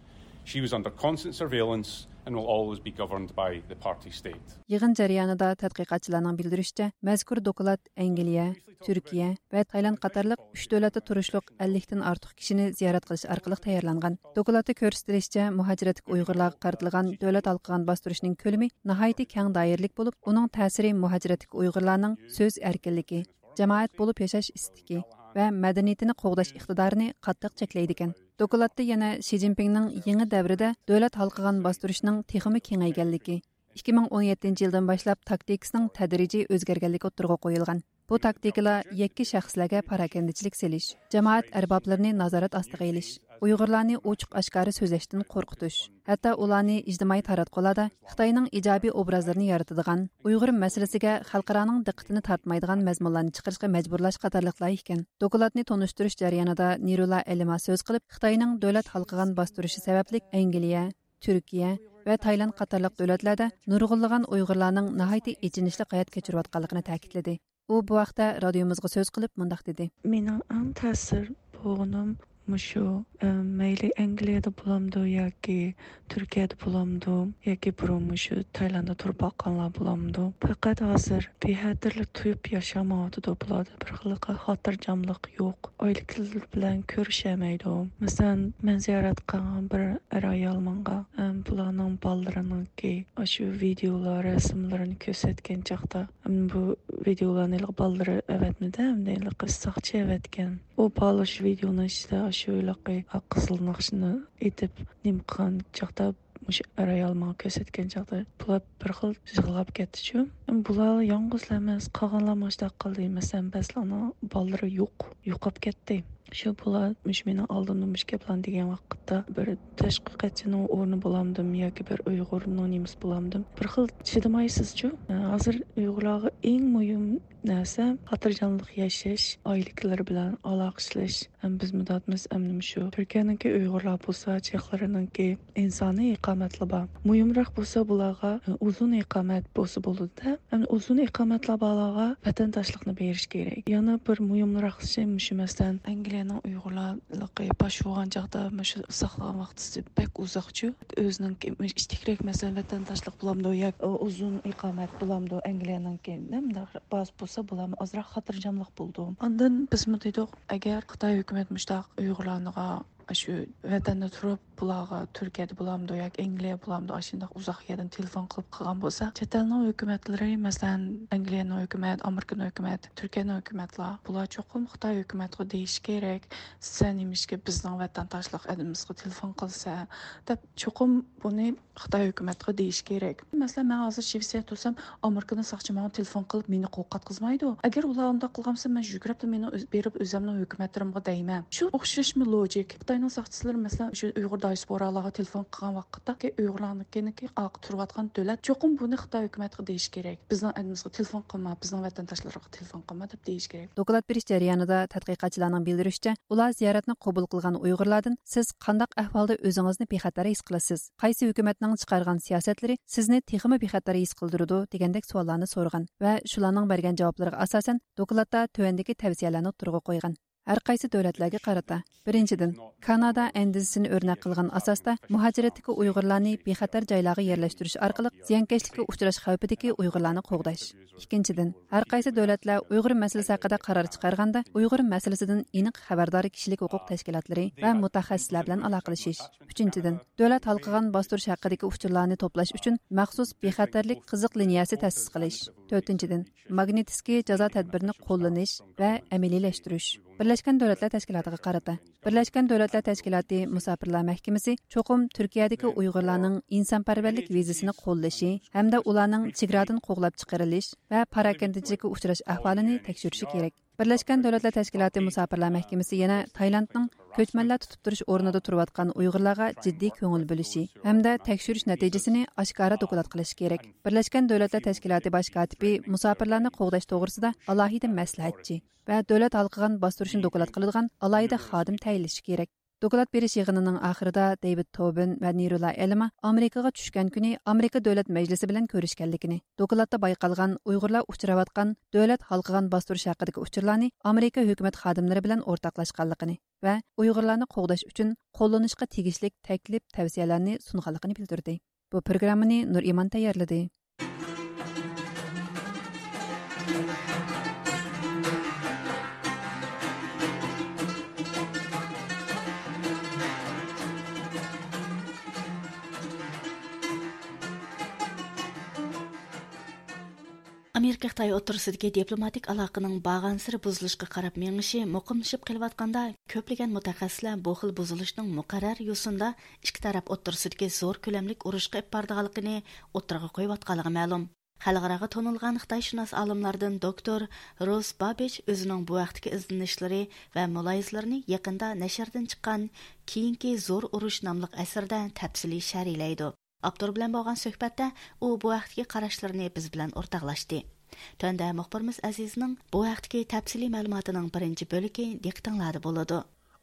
She was under constant surveillance and will always be governed by the party state. يىغىن جەريانىدا تەتقىقاتچىلارنىڭ بىلدۈرۈشىچە، مەزكۇر دوكلات ئەنگلىيە، تۈركىيە ۋە تايلاند قاتارلىق ئۈچ دۆلەتتە تۇرۇشلۇق ئەللىكتىن ئارتۇق كىشىنى زىيارەت قىلىش ئارقىلىق تەييارلانغان. دوكلاتتا كۆرسىتىلىشىچە، مۇھاجىرەتتىكى ئۇيغۇرلارغا قارىتىلغان دۆلەت ھالقىغان باستۇرۇشنىڭ كۆلىمى ناھايىتى كەڭ دائىرىلىك بولۇپ، ئۇنىڭ تەسىرى مۇھاجىرەتتىكى ئۇيغۇرلارنىڭ سۆز ئەركىنلىكى، جامائەت بولۇپ ياشاش ئىستىكى ۋە مەدەنىيىتىنى قوغداش ئىقتىدارىنى قاتتىق چەكلەيدىكەن. دوكلاتتا يەنە شى جىنپىڭنىڭ يېڭى دەۋرىدە دۆلەت ھالقىغان باستۇرۇشنىڭ تېخىمۇ كېڭەيگەنلىكى، ئىككى مىڭ ئون يەتتىنچى يىلدىن باشلاپ تاكتىكىسىنىڭ تەدرىجىي ئۆزگەرگەنلىكى ئوتتۇرىغا قويۇلغان. بۇ تاكتىكىلار يەككە شەخسلەرگە پاراكەندىچىلىك سېلىش، جامائەت ئەربابلىرىنى نازارەت ئاستىغا ئېلىش، ئۇيغۇرلارنى ئوچۇق ئاشكارا سۆزلەشتىن قورقۇتۇش، ھەتتا ئۇلارنى ئىجتىمائىي تاراتقۇلاردا خىتاينىڭ ئىجابىي ئوبرازلىرىنى يارىتىدىغان، ئۇيغۇر مەسىلىسىگە خەلقئارانىڭ دىققىتىنى تارتمايدىغان مەزمۇنلارنى چىقىرىشقا مەجبۇرلاش قاتارلىقلار ئىكەن. دوكلاتنى تونۇشتۇرۇش جەريانىدا نىرۇلا ئەلىما سۆز قىلىپ، خىتاينىڭ دۆلەت ھالقىغان باستۇرۇشى سەۋەبلىك ئەنگلىيە، تۈركىيە ۋە تايلاند قاتارلىق دۆلەتلەردە نۇرغۇنلىغان ئۇيغۇرلارنىڭ ناھايىتى ئېچىنىشلىق ھايات كەچۈرۈۋاتقانلىقىنى تەكىتلىدى. ئۇ بۇ ھەقتە رادىيومىزغا سۆز قىلىپ مۇنداق دېدى. مېنىڭ ئەڭ تەسىر بولغىنىم مۇشۇ، ئە، مەيلى ئەنگلىيەدە بولامدۇ ياكى تۈركىيەدە بولامدۇ ياكى بۇرۇن مۇشۇ تايلانددا تۇرۇپ باققانلار بولامدۇ؟ پەقەت ھازىر بىخەتەرلىك تۇيۇپ ياشىمايۋاتىدۇ بۇلاردا. بىر خىللىقى خاتىرجەملىك يوق. ئائىلىكىلىرى بىلەن كۆرۈشەلمەيدۇ. مەسىلەن، مەن زىيارەت قىلغان بىر ئەر-ئايال ماڭا، ئەم، بۇلارنىڭ بالىلىرىنىڭكى ئاشۇ ۋىدېئولار، رەسىملىرىنى كۆرسەتكەن چاغدا، ئەم، بۇ ۋىدېئولارنى ھېلىقى بالىلىرى ئەۋەتمىدى، ئەمدى ھېلىقى ساقچى ئەۋەتكەن. ئۇ بالا شۇ ۋىدېئونىڭ ئىچىدە ئاشۇ ھېلىقى قىزىل ناخشىنى ئېيتىپ نېمە قىلغان چاغدا، مۇشۇ ئەر-ئايال ماڭا كۆرسەتكەن چاغدا، بۇلار بىر خىل يىغلاپ كەتتىچۇ. بۇلار يالغۇزلا ئەمەس، قالغانلار مۇشۇنداق قىلدى. مەسىلەن، بەزىلەرنىڭ بالىلىرى يوق، يوقاپ كەتتى. شۇ بۇلار مۇشۇ مېنىڭ ئالدىمدا مۇشۇ گەپلەرنى دېگەن ۋاقىتتا، بىر تەشۋىقاتچىنىڭ ئورنى بولامدىم ياكى بىر ئۇيغۇرنىڭ نېمىسى بولامدىم، بىر خىل چىدىمايسىزچۇ. ھازىر ئۇيغۇرلارغا ئەڭ مۇھىم نەرسە خاتىرجەملىك ياشاش، ئائىلىكىلىرى بىلەن ئالاقىلىشىش. ھەم بىز مۇداتمىز ئەمدى مۇشۇ تۈركىيەنىڭكى ئۇيغۇرلار بولسا، چېخلىرىنىڭكى ئىنسانىي ئىقامەتلىرى بار. مۇھىمراق بولسا بۇلارغا ئۇزۇن ئىقامەت بولسا بولىدۇ-دە. ئەمدى ئۇزۇن ئىقامەتلەر بارلارغا ۋەتەنداشلىقنى بېرىش كېرەك. يەنە بىر مۇھىمراق ئىشى مۇشۇ، مەسىلەن، ئەنگلىيەنىڭ ئۇيغۇرلىقى پاش بولغان چاغدا مۇشۇ ساقلىغان ۋاقتىسى بەك ئۇزاقچۇ. ئۆزىنىڭكى ئىچتىكرەك، مەسىلەن، ۋەتەنداشلىق بولامدۇ ياكى ئۇزۇن ئىقامەت بولامدۇ ئەنگلىيەنىڭكى، نېمە، باز بولسا بولامدۇ، ئازراق خاتىرجەملىك بولىدۇ. ئاندىن بىزمۇ دېدۇق، ئەگەر خىتاي ھۆكۈمەت مۇشۇنداق ئۇيغۇرلارنىڭغا ئاشۇ ۋەتەندە تۇرۇپ، بۇلارغا تۈركىيەدە بولامدۇ ياكى ئەنگلىيە بولامدۇ، ئاشۇنداق ئۇزاق يەردىن تېلېفون قىلىپ قىلغان بولسا، چەت ئەلنىڭ ھۆكۈمەتلىرى، مەسىلەن، ئەنگلىيەنىڭ ھۆكۈمەت، ئامېرىكىنىڭ ھۆكۈمەت، تۈركىيەنىڭ ھۆكۈمەتلەر، بۇلار چوقۇم خىتاي ھۆكۈمەتقا دېيىشى كېرەك، سەن نېمىشقا بىزنىڭ ۋەتەنداشلىق ئادىمىمىزغا تېلېفون قىلىسەن، دەپ چوقۇم بۇنى خىتاي ھۆكۈمەتقا دېيىش كېرەك. مەسىلەن، مەن ھازىر شىۋېتسىيەدە تۇرسام، ئامېرىكىنىڭ ساقچى ماڭا تېلېفون قىلىپ، مېنى قورقۇتقۇزمايدۇ. ئەگەر ئۇلار ئۇنداق قىلغان بولسا، مەن يۈگۈرۈپلا مېنى ئۆز-، بېرىپ ئۆزۈمنىڭ ھۆكۈمەتلىرىمگە دەيمەن. شۇ ئوخشاشمۇ لوجىك. خىتاينىڭ ساقچىلىرى، مەسىلەن، شۇ ئۇيغۇر دىياسپورالارغا تېلېفون قىلغان ۋاقىتتا، ئۇيغۇرلارنىڭكىنىڭكى ئارقا تۇرۇۋاتقان دۆلەت، چوقۇم بۇنى خىتاي ھۆكۈمەتقە دېيىش كېرەك. بىزنىڭ ئەلىمىزگە تېلېفون قىلما، بىزنىڭ ۋەتەنداشلىرىغا تېلېفون قىلما دەپ دېيىش كېرەك. دوكلات بېرىش جەريانىدا تەتقىقاتچىلارنىڭ بىلدۈرۈشىچە، ئۇلار زىيارەتنى قوبۇل قىلغان ئۇيغۇرلاردىن سىز قانداق ئەھۋالدا ئۆزىڭىزنى بىخەتەر ھېس قىلىسىز؟ قايسى ھۆكۈمەتنىڭ چىقارغان سىياسەتلىرى سىزنى تېخىمۇ بىخەتەر ھېس قىلدۇرىدۇ؟ دېگەندەك سوئاللارنى سورىغان ۋە شۇلارنىڭ بەرگەن جاۋابلىرىغا ئاساسەن، دوكلاتتا تۆۋەندىكى تەۋسىيەلەرنى ئوتتۇرىغا قويغان. ھەر قايسى دۆلەتلەرگە قارىتا. بىرىنچىدىن، كانادا ئەندىزىسىنى ئۆرنەك قىلغان ئاساستا مۇھاجىرەتتىكى ئۇيغۇرلارنى بىخەتەر جايلارغا يەرلەشتۈرۈش ئارقىلىق زىيانكەشلىككە ئۇچراش خەۋپىدىكى ئۇيغۇرلارنى قوغداش. ئىككىنچىدىن، ھەر قايسى دۆلەتلەر ئۇيغۇر مەسىلىسى ھەققىدە قارار چىقارغاندا، ئۇيغۇر مەسىلىسىدىن ئېنىق خەۋەردار كىشىلىك ھوقۇق تەشكىلاتلىرى ۋە مۇتەخەسسىسلەر بىلەن ئالاقىلىشىش. ئۈچىنچىدىن، دۆلەت ھالقىغان باستۇرۇش ھەققىدىكى ئۇچۇرلارنى توپلاش ئۈچۈن مەخسۇس بىخەتەرلىك قىزىق لىنىيەسى تەسىس قىلىش. تۆتىنچىدىن، ماگنىتسكىي جازا تەدبىرىنى قوللىنىش ۋە ئەمەلىيلەشتۈرۈش. بىرلەشكەن دۆلەتلەر تەشكىلاتىغا قارىتا. بىرلەشكەن دۆلەتلەر تەشكىلاتى مۇساپىرلار مەھكىمىسى چوقۇم تۈركىيەدىكى ئۇيغۇرلارنىڭ ئىنسانپەرۋەرلىك ۋىزىسىنى قوللىشى ھەمدە ئۇلارنىڭ چېگرادىن قوغلاپ چىقىرىلىش ۋە پاراكەندىچىلىككە ئۇچراش ئەھۋالىنى تەكشۈرۈشى كېرەك. بىرلەشكەن دۆلەتلەر تەشكىلاتى مۇساپىرلار مەھكىمىسى يەنە تايلاندنىڭ كۆچمەنلەر تۇتۇپ تۇرۇش ئورنىدا تۇرۇۋاتقان ئۇيغۇرلارغا جىددىي كۆڭۈل بۆلۈشى ھەمدە تەكشۈرۈش نەتىجىسىنى ئاشكارا دوكلات قىلىشى كېرەك. بىرلەشكەن دۆلەتلەر تەشكىلاتى باش كاتىپى مۇساپىرلارنى قوغداش توغرىسىدا ئالاھىدە مەسلىھەتچى ۋە دۆلەت ھالقىغان باستۇرۇشنى دوكلات قىلىدىغان ئالاھىدە خادىم تەيىنلىشى كېرەك. دوكلات بېرىش يىغىنىنىڭ ئاخىرىدا دېۋىد توبىن ۋە نىرۇلا ئېلما ئامېرىكىغا چۈشكەن كۈنى ئامېرىكا دۆلەت مەجلىسى بىلەن كۆرۈشكەنلىكىنى، دوكلاتتا بايقالغان ئۇيغۇرلار ئۇچراۋاتقان دۆلەت ھالقىغان باستۇرۇش ھەققىدىكى ئۇچۇرلارنى ئامېرىكا ھۆكۈمەت خادىملىرى بىلەن ئورتاقلاشقانلىقىنى ۋە ئۇيغۇرلارنى قوغداش ئۈچۈن قوللىنىشقا تېگىشلىك تەكلىپ، تەۋسىيەلەرنى سۇنغانلىقىنى بىلدۈردى. بۇ پروگراممىنى نۇرئىمان تەييارلىدى. ئامېرىكا خىتاي ئوتتۇرىسىدىكى دىپلوماتىك ئالاقىنىڭ بارغانسېرى بۇزۇلۇشقا قاراپ مېڭىشى مۇقىملىشىپ قېلىۋاتقاندا، كۆپلىگەن مۇتەخەسسىسلەر بۇ خىل بۇزۇلۇشنىڭ مۇقەررەر يوسۇندا ئىككى تەرەپ ئوتتۇرىسىدىكى زور كۆلەملىك ئۇرۇشقا ئېلىپ بارىدىغانلىقىنى ئوتتۇرىغا قويۇۋاتقانلىقى مەلۇم. خەلقئاراغا تونۇلغان خىتايشۇناس ئالىملاردىن دوكتور روس بابىچ ئۆزىنىڭ بۇ ھەقتىكى ئىزدىنىشلىرى ۋە مۇلاھىزىلىرىنى يېقىندا نەشردىن چىققان كېيىنكى زور ئۇرۇش ناملىق ئەسىرىدە تەپسىلىي شەرھلەيدۇ. ئاپتور بىلەن بولغان سۆھبەتتە ئۇ بۇ ھەقتىكى قاراشلىرىنى بىز بىلەن ئورتاقلاشتى. تۆۋەندە مۇخبىرىمىز ئەزىزنىڭ بۇ ھەقتىكى تەپسىلىي مەلۇماتىنىڭ بىرىنچى بۆلىكى دىققىتىڭلاردا بولىدۇ.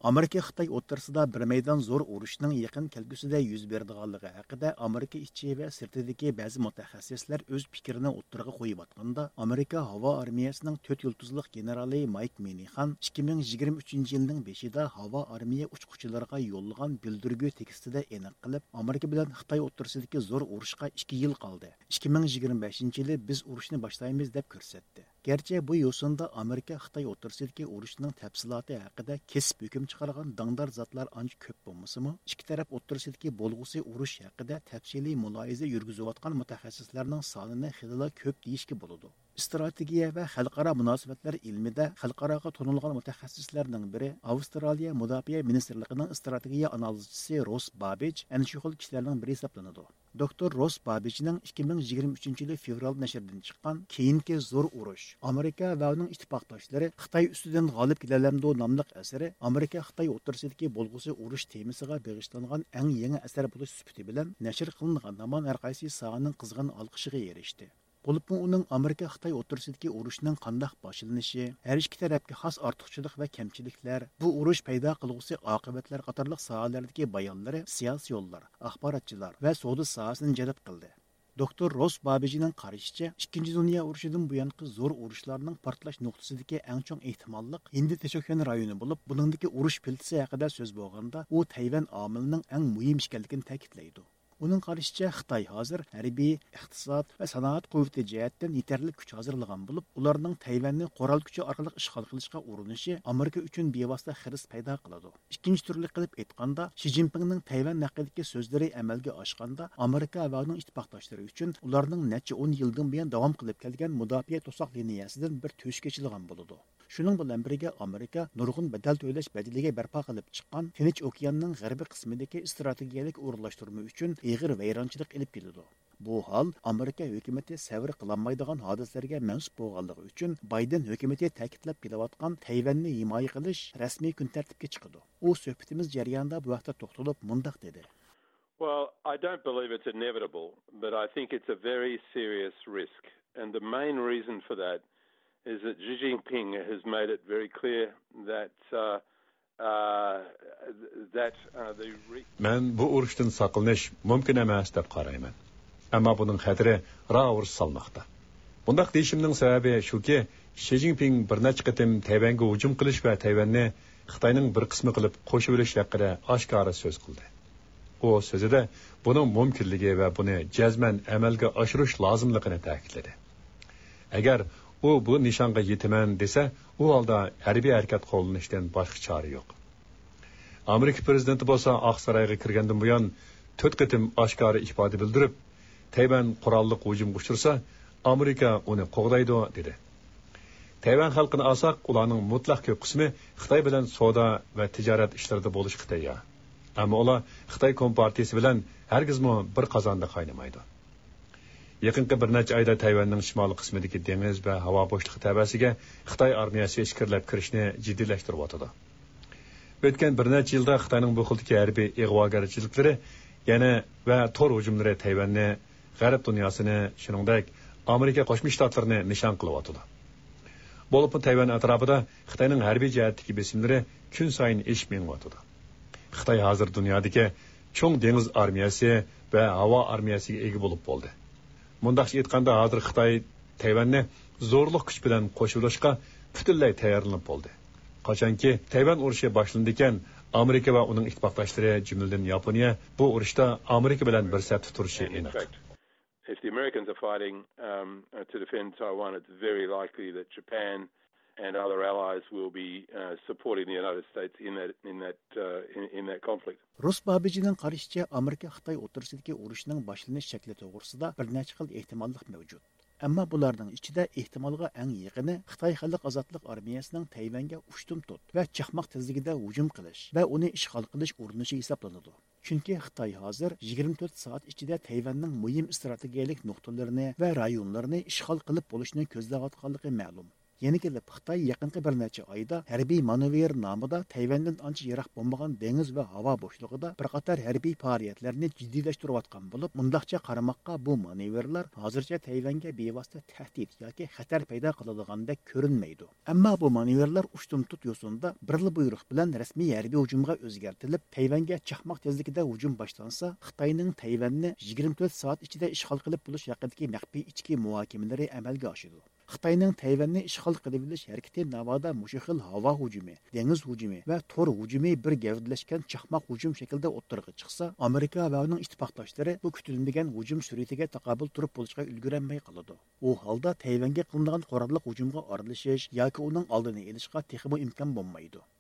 ئامېرىكا خىتاي ئوتتۇرىسىدا بىر مەيدان زور ئۇرۇشنىڭ يېقىن كەلگۈسىدە يۈز بېرىدىغانلىقى ھەققىدە ئامېرىكا ئىچى ۋە سىرتىدىكى بەزى مۇتەخەسسىسلەر ئۆز پىكرىنى ئوتتۇرىغا قويۇۋاتقاندا، ئامېرىكا ھاۋا ئارمىيەسىنىڭ تۆت يۇلتۇزلۇق گېنېرالى مايك مىنىخان ئىككى مىڭ يىگىرمە ئۈچىنچى يىلنىڭ بېشىدا ھاۋا ئارمىيە ئۇچقۇچىلىرىغا يوللىغان بىلدۈرگۈ تېكىستىدە ئېنىق قىلىپ، ئامېرىكا بىلەن خىتاي ئوتتۇرىسىدىكى زور ئۇرۇشقا ئىككى يىل قالدى. ئىككى مىڭ يىگىرمە بەشىنچى يىلى بىز ئۇرۇشنى باشلايمىز، دەپ كۆرسەتتى. گەرچە بۇ يوسۇندا ئامېرىكا خىتاي ئوتتۇرىسىدىكى ئۇرۇشنىڭ تەپسىلاتى ھەققىدە كېسىپ ھۆكۈم چىقارغان داڭدار زاتلار ئانچە كۆپ بولمىسىمۇ، ئىككى تەرەپ ئوتتۇرىسىدىكى بولغۇسى ئۇرۇش ھەققىدە تەپسىلىي مۇلاھىزە يۈرگۈزۈۋاتقان مۇتەخەسسىسلەرنىڭ سانىنى خېلىلا كۆپ دېيىشكە بولىدۇ. ئىستراتېگىيە ۋە خەلقئارا مۇناسىۋەتلەر ئىلمىدە خەلقئاراغا تونۇلغان مۇتەخەسسىسلەرنىڭ بىرى، ئاۋسترالىيە مۇداپىئە مىنىستىرلىقىنىڭ ئىستراتېگىيە ئانالىزچىسى روس بابىچ ئەنە شۇ خىل كىشىلەرنىڭ بىرى ھېسابلىنىدۇ. دوكتور روس بابىچنىڭ ئىككى مىڭ يىگىرمە ئۈچىنچى يىلى فېۋرال نەشرىدىن چىققان كېيىنكى زور ئۇرۇش، ئامېرىكا ۋە ئۇنىڭ ئىتتىپاقداشلىرى خىتاي ئۈستىدىن غالىب كېلەلەمدۇ ناملىق ئەسىرى ئامېرىكا خىتاي ئوتتۇرىسىدىكى بولغۇسى ئۇرۇش تېمىسىغا بېغىشلانغان ئەڭ يېڭى ئەسەر بولۇش سۈپىتى بىلەن نەشر قىلىنغان ھامان ھەر قايسى ساھەنىڭ قىزغىن ئالقىشىغا ئېرىشتى. بولۇپمۇ ئۇنىڭ ئامېرىكا خىتاي ئوتتۇرىسىدىكى ئۇرۇشنىڭ قانداق باشلىنىشى، ھەر ئىككى تەرەپكە خاس ئارتۇقچىلىق ۋە كەمچىلىكلەر، بۇ ئۇرۇش پەيدا قىلغۇسى ئاقىۋەتلەر قاتارلىق ساھەلەردىكى بايانلىرى سىياسىيونلار، ئاخباراتچىلار ۋە سودا ساھەسىنى جەلپ قىلدى. دوكتور روس بابىجنىڭ قارىشىچە، ئىككىنچى دۇنيا ئۇرۇشىدىن بۇيانقى زور ئۇرۇشلارنىڭ پارتلاش نۇقتىسىدىكى ئەڭ چوڭ ئېھتىماللىق ھىندى تىنچ ئوكيان رايونى بولۇپ، بۇنىڭدىكى ئۇرۇش پىلتىسى ھەققىدە سۆز بولغاندا، ئۇ تەيۋەن ئامىلىنىڭ ئەڭ مۇھىم ئىكەنلىكىنى تەكىتلەيدۇ. ئۇنىڭ قارىشىچە، خىتاي ھازىر ھەربىي، ئىقتىساد ۋە سانائەت قۇۋۋىتى جەھەتتىن يېتەرلىك كۈچ ھازىرلىغان بولۇپ، ئۇلارنىڭ تەيۋەننى قورال كۈچى ئارقىلىق ئىشغال قىلىشقا ئۇرۇنۇشى ئامېرىكا ئۈچۈن بىۋاسىتە خىرىس پەيدا قىلىدۇ. ئىككىنچى تۈرلۈك قىلىپ ئېيتقاندا، شى جىنپىڭنىڭ تەيۋەن ھەققىدىكى سۆزلىرى ئەمەلگە ئاشقاندا، ئامېرىكا ۋە ئۇنىڭ ئىتتىپاقداشلىرى ئۈچۈن ئۇلارنىڭ نەچچە ئون يىلدىن بۇيان داۋام قىلىپ كەلگەن مۇداپىئە توساق لىنىيەسىدىن بىر تۆشۈك ئېچىلغان بولىدۇ. شۇنىڭ بىلەن بىرگە، ئامېرىكا نۇرغۇن بەدەل تۆلەش بەدىلىگە بەرپا قىلىپ چىققان تىنچ ئوكياننىڭ غەربىي قىسمىدىكى ئىستراتېگىيەلىك ئورۇنلاشتۇرما ئۈچۈن ئېغىر ۋەيرانچىلىق ئېلىپ كېلىدۇ. بۇ ھال ئامېرىكا ھۆكۈمىتى سەۋر قىلالمايدىغان ھادىسىلەرگە مەنسۇپ بولغانلىقى ئۈچۈن، بايدېن ھۆكۈمىتى تەكىتلەپ كېلىۋاتقان تەيۋەننى ھىمايە قىلىش رەسمىي كۈن تەرتىپكە چىقىدۇ. ئۇ سۆھبىتىمىز جەريانىدا بۇ ھەقتە توختىلىپ مۇنداق دېدى. Well, I don't believe it's inevitable, but I think it's a very serious risk. And the main reason for that is that Xi Jinping has made it very clear that, uh, uh, that, uh, the re- مەن بۇ ئۇرۇشتىن ساقلىنىش مۇمكىن ئەمەس دەپ قارايمەن. ئەمما بۇنىڭ خەتىرى راۋۇرۇس سالماقتا. بۇنداق دېيىشىمنىڭ سەۋەبى شۇكى، شى جىنپىڭ بىر نەچچە قېتىم تەيۋەنگە ھۇجۇم قىلىش ۋە تەيۋەننى خىتاينىڭ بىر قىسمى قىلىپ قوشۇۋېلىش ھەققىدە ئاشكارا سۆز قىلدى. ئۇ سۆزىدە بۇنىڭ مۇمكىنلىكى ۋە بۇنى جەزمەن ئەمەلگە ئاشۇرۇش لازىملىقىنى تەكىتلىدى. ئەگەر ئۇ بۇ نىشانغا يېتىمەن دېسە، ئۇ ھالدا ھەربىي ھەرىكەت قوللىنىشتىن باشقا چارە يوق. ئامېرىكا پىرېزىدېنتى بولسا ئاقسارايغا كىرگەندىن بۇيان تۆت قېتىم ئاشكارا ئىپادە بىلدۈرۈپ، تەيۋەن قوراللىق ھۇجۇمغا ئۇچرىسا، ئامېرىكا ئۇنى قوغدايدۇ، دېدى. تەيۋەن خەلقىنى ئالساق، ئۇلارنىڭ مۇتلەق كۆپ قىسمى خىتاي بىلەن سودا ۋە تىجارەت ئىشلىرىدا بولۇشقا تەييار. ئەمما ئۇلار خىتاي كومپارتىيىسى بىلەن ھەرگىزمۇ بىر قازاندا قاينىمايدۇ. يېقىنقى بىر نەچچە ئايدا تەيۋەننىڭ شىمالىي قىسمىدىكى دېڭىز ۋە ھاۋا بوشلۇقى تەۋەسىگە خىتاي ئارمىيەسى ئىچكىرىلەپ كىرىشنى جىددىيلەشتۈرۈۋاتىدۇ. ئۆتكەن بىر نەچچە يىلدا خىتاينىڭ بۇ خىلدىكى ھەربىي ئىغۋاگەرچىلىكلىرى يەنە ۋە تور ھۇجۇملىرى تەيۋەننى، غەرب دۇنياسىنى، شۇنىڭدەك ئامېرىكا قوشما شتاتلىرىنى نىشان قىلىۋاتىدۇ. بولۇپمۇ تەيۋەن ئەتراپىدا خىتاينىڭ ھەربىي جەھەتتىكى بېسىملىرى كۈنسايىن ئېشىپ مېڭىۋاتىدۇ. خىتاي ھازىر دۇنيادىكى چوڭ دېڭىز ئارمىيەسى ۋە ھاۋا ئارمىيەسىگە ئىگە بولۇپ بولدى. مۇنداقچە ئېيتقاندا، ھازىر خىتاي تەيۋەننى زورلۇق كۈچ بىلەن قوشۇۋېلىشقا پۈتۈنلەي تەييارلىنىپ بولدى. قاچانكى تەيۋەن ئۇرۇشى باشلىنىدىكەن، ئامېرىكا ۋە ئۇنىڭ ئىتتىپاقداشلىرى، جۈملىدىن ياپونىيە، بۇ ئۇرۇشتا ئامېرىكا بىلەن بىر سەپتە تۇرۇشى ئېنىق. If the Americans are fighting, um, uh, to defend Taiwan, it's very likely that Japan and other allies will be, uh, supporting the United States in that, in that, uh, in, in that conflict. روس بابىجىنىڭ قارىشىچە، ئامېرىكا خىتاي ئوتتۇرىسىدىكى ئۇرۇشنىڭ باشلىنىش شەكلى توغرىسىدا بىر نەچچە خىل ئېھتىماللىق مەۋجۇت. ئەمما بۇلارنىڭ ئىچىدە ئېھتىمالغا ئەڭ يېقىنى خىتاي خەلق ئازادلىق ئارمىيەسىنىڭ تەيۋەنگە ئۇشتۇمتۇت ۋە چاقماق تېزلىكىدە ھۇجۇم قىلىش ۋە ئۇنى ئىشغال قىلىش ئۇرۇنۇشى ھېسابلىنىدۇ. چۈنكى خىتاي ھازىر يىگىرمە تۆت سائەت ئىچىدە تەيۋەننىڭ مۇھىم ئىستراتېگىيەلىك نۇقتىلىرىنى ۋە رايونلىرىنى ئىشغال قىلىپ بولۇشنى كۆزلەۋاتقانلىقى مەلۇم. يەنە كېلىپ، خىتاي يېقىنقى بىر نەچچە ئايدا ھەربىي مانېۋىر نامىدا تەيۋەندىن ئانچە يىراق بولمىغان دېڭىز ۋە ھاۋا بوشلۇقىدا بىر قاتار ھەربىي پائالىيەتلەرنى جىددىيلەشتۈرۈۋاتقان بولۇپ، مۇنداقچە قارىماققا، بۇ مانېۋىرلار ھازىرچە تەيۋەنگە بىۋاسىتە تەھدىت ياكى خەتەر پەيدا قىلىدىغاندەك كۆرۈنمەيدۇ. ئەمما بۇ مانېۋىرلار ئۇشتۇمتۇت يوسۇندا بىرلا بۇيرۇق بىلەن رەسمىي ھەربىي ھۇجۇمغا ئۆزگەرتىلىپ، تەيۋەنگە چاقماق تېزلىكىدە ھۇجۇم باشلانسا، خىتاينىڭ تەيۋەننى يىگىرمە تۆت سائەت ئىچىدە ئىشغال قىلىپ بولۇش ھەققىدىكى مەخپىي ئىچكى مۇھاكىمىلىرى ئەمەلگە ئاشىدۇ. خىتاينىڭ تەيۋەننى ئىشغال قىلىۋېلىش ھەرىكىتى ناۋادا مۇشۇ خىل ھاۋا ھۇجۇمى، دېڭىز ھۇجۇمى ۋە تور ھۇجۇمى بىر گەۋدىلەشكەن چاقماق ھۇجۇم شەكلىدە ئوتتۇرىغا چىقسا، ئامېرىكا ۋە ئۇنىڭ ئىتتىپاقداشلىرى بۇ كۈتۈلمىگەن ھۇجۇم سۈرئىتىگە تاقابىل تۇرۇپ بولۇشقا ئۈلگۈرەلمەي قالىدۇ. ئۇ ھالدا تەيۋەنگە قىلىنىدىغان قوراللىق ھۇجۇمغا ئارىلىشىش ياكى ئۇنىڭ ئالدىنى ئېلىشقا تېخىمۇ ئىمكان بولمايدۇ.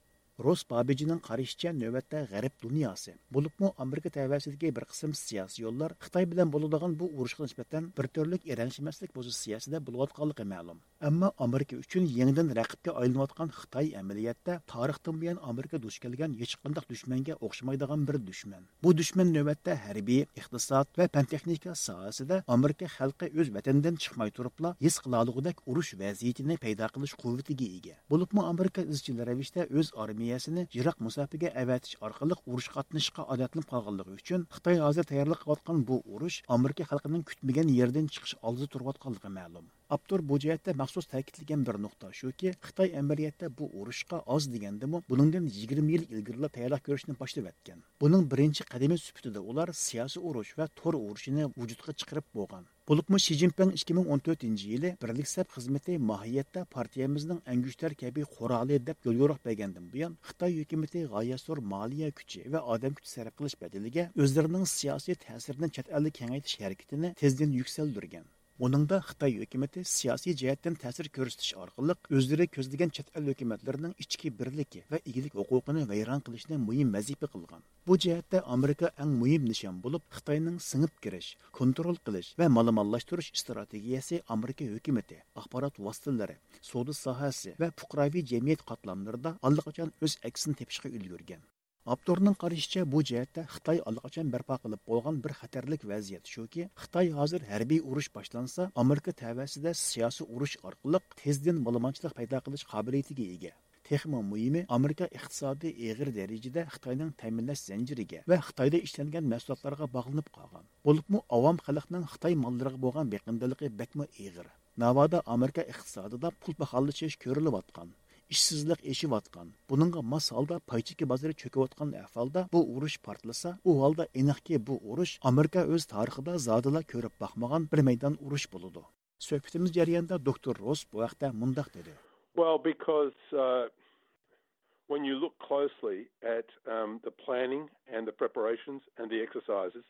روس بابىجىنىڭ قارىشىچە، نۆۋەتتە غەرب دۇنياسى، بولۇپمۇ ئامېرىكا تەۋەسىدىكى بىر قىسىم سىياسىيونلار خىتاي بىلەن بولىدىغان بۇ ئۇرۇشقا نىسبەتەن بىر تۈرلۈك ئىرەنشىمەسلىك پوزىتسىيەسىدە بولۇۋاتقانلىقى مەلۇم. ئەمما ئامېرىكا ئۈچۈن يېڭىدىن رەقىبكە ئايلىنىۋاتقان خىتاي ئەمەلىيەتتە تارىختىن بۇيان ئامېرىكا دۇچ كەلگەن ھېچقانداق دۈشمەنگە ئوخشىمايدىغان بىر دۈشمەن. بۇ دۈشمەن نۆۋەتتە ھەربىي، ئىقتىساد ۋە پەن-تېخنىكا ساھەسىدە ئامېرىكا خەلقى ئۆز ۋەتىنىدىن چىقماي تۇرۇپلا ھېس قىلالىغۇدەك ئۇرۇش ۋەزىيىتىنى پەيدا قىلىش قۇۋۋىتىگە ئىگە. بولۇپمۇ ئامېرىكا ئىزچىل رەۋىشتە ئۆز ئارمىيەسىنى يىراق مۇساپىگە ئەۋەتىش ئارقىلىق ئۇرۇشقا قاتنىشىشقا ئادەتلىنىپ قالغانلىقى ئۈچۈن، خىتاي ھازىر تەييارلىق قىلىۋاتقان بۇ ئۇرۇش ئامېرىكا خەلقىنىڭ كۈتمىگەن يېرىدىن چىقىش ئالدىدا تۇرۇۋاتقانلىقى مەلۇم. ئاپتور بۇ جەھەتتە مەخسۇس تەكىتلىگەن بىر نۇقتا شۇكى، خىتاي ئەمەلىيەتتە بۇ ئۇرۇشقا ئاز دېگەندىمۇ بۇنىڭدىن يىگىرمە يىل ئىلگىرىلا تەييارلىق كۆرۈشنى باشلىۋەتكەن. بۇنىڭ بىرىنچى قەدىمى سۈپىتىدە ئۇلار سىياسىي ئۇرۇش ۋە تور ئۇرۇشىنى ۋۇجۇدقا چىقىرىپ بولغان. بولۇپمۇ شى جىنپىڭ ئىككى مىڭ ئون تۆتىنچى يىلى بىرلىك سەپ خىزمىتى ماھىيەتتە پارتىيەمىزنىڭ ئەڭگۈشتەر كەبى قورالى دەپ يوليورۇق بەرگەندىن بۇيان، خىتاي ھۆكۈمىتى غايەت زور مالىيە كۈچى ۋە ئادەم كۈچى سەرپ قىلىش بەدىلىگە ئۆزلىرىنىڭ سىياسىي تەسىرىنى چەت ئەلدە كېڭەيتىش ھەرىكىتىنى تېزدىن يۈكسەلدۈرگەن. بۇنىڭدا خىتاي ھۆكۈمىتى سىياسىي جەھەتتىن تەسىر كۆرسىتىش ئارقىلىق ئۆزلىرى كۆزلىگەن چەت ئەل ھۆكۈمەتلىرىنىڭ ئىچكى بىرلىكى ۋە ئىگىلىك ھوقۇقىنى ۋەيران قىلىشنى مۇھىم ۋەزىپە قىلغان. بۇ جەھەتتە ئامېرىكا ئەڭ مۇھىم نىشان بولۇپ، خىتاينىڭ سىڭىپ كىرىش، كونترول قىلىش ۋە مالىمانلاشتۇرۇش ئىستراتېگىيەسى ئامېرىكا ھۆكۈمىتى، ئاخبارات ۋاسىتىلىرى، سودا ساھەسى ۋە پۇقراۋى جەمئىيەت قاتلاملىرىدا ئاللىقاچان ئۆز ئەكسىنى تېپىشقا ئۈلگۈرگەن. ئاپتورنىڭ قارىشىچە، بۇ جەھەتتە خىتاي ئاللىقاچان بەرپا قىلىپ بولغان بىر خەتەرلىك ۋەزىيەت شۇكى، خىتاي ھازىر ھەربىي ئۇرۇش باشلانسا، ئامېرىكا تەۋەسىدە سىياسىي ئۇرۇش ئارقىلىق تېزدىن مالىمانچىلىق پەيدا قىلىش قابىلىيىتىگە ئىگە. تېخىمۇ مۇھىمى، ئامېرىكا ئىقتىسادى ئېغىر دەرىجىدە خىتاينىڭ تەمىنلەش زەنجىرىگە ۋە خىتايدا ئىشلەنگەن مەھسۇلاتلارغا باغلىنىپ قالغان. بولۇپمۇ ئاۋام خەلقنىڭ خىتاي ماللىرىغا بولغان بېقىندىلىقى بەكمۇ ئېغىر. ناۋادا ئامېرىكا ئىقتىسادىدا پۇل پاخاللىشىش كۆرۈلۈۋاتقان، ئىشسىزلىق ئېشىۋاتقان، بۇنىڭغا ماس ھالدا پاي چېكى بازىرى چۆكۈۋاتقان ئەھۋالدا بۇ ئۇرۇش پارتلىسا، ئۇ ھالدا ئېنىقكى، بۇ ئۇرۇش ئامېرىكا ئۆز تارىخىدا زادىلا كۆرۈپ باقمىغان بىر مەيدان ئۇرۇش بولىدۇ. سۆھبىتىمىز جەريانىدا دوكتور روس بۇ ھەقتە مۇنداق دېدى. Well, because, uh, when you look closely at, um, the planning and the preparations and the exercises,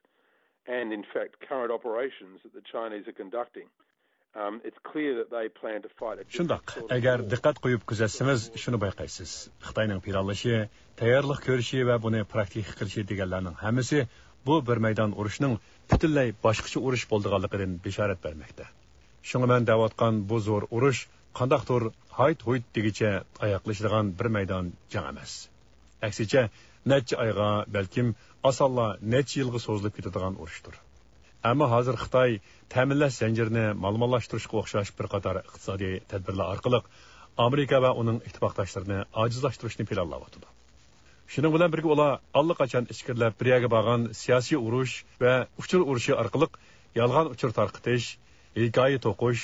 and in fact current operations that the Chinese are conducting, um, it's clear that they plan to fight a different شۇنداق، sort of ئەگەر war. دىققەت قويۇپ كۆزەتسىڭىز، شۇنى بايقايسىز. خىتاينىڭ پىلانلىشى، تەييارلىق كۆرۈشى ۋە بۇنى پراكتىكا قىلىشى دېگەنلەرنىڭ ھەممىسى بۇ بىر مەيدان ئۇرۇشنىڭ پۈتۈنلەي باشقىچە ئۇرۇش بولىدىغانلىقىدىن بېشارەت بەرمەكتە. شۇڭا مەن دەۋاتقان بۇ زور ئۇرۇش قانداقتۇر ھايت-ھۇيت دېگۈچە ئاياغلىشىدىغان بىر مەيدان جەڭ ئەمەس. ئەكسىچە، نەچچە ئايغا، بەلكىم ئاسانلا نەچچە يىلغا سوزۇلۇپ كېتىدىغان ئۇرۇشتۇر. ئەمما ھازىر خىتاي تەمىنلەش زەنجىرىنى مالىمانلاشتۇرۇشقا ئوخشاش بىر قاتار ئىقتىسادىي تەدبىرلەر ئارقىلىق ئامېرىكا ۋە ئۇنىڭ ئىتتىپاقداشلىرىنى ئاجىزلاشتۇرۇشنى پىلانلاۋاتىدۇ. شۇنىڭ بىلەن بىرگە، ئۇلار ئاللىقاچان ئىچكىرىلەپ بىر يەرگە بارغان سىياسىي ئۇرۇش ۋە ئۇچۇر ئۇرۇشى ئارقىلىق يالغان ئۇچۇر تارقىتىش، ھېكايە توقۇش،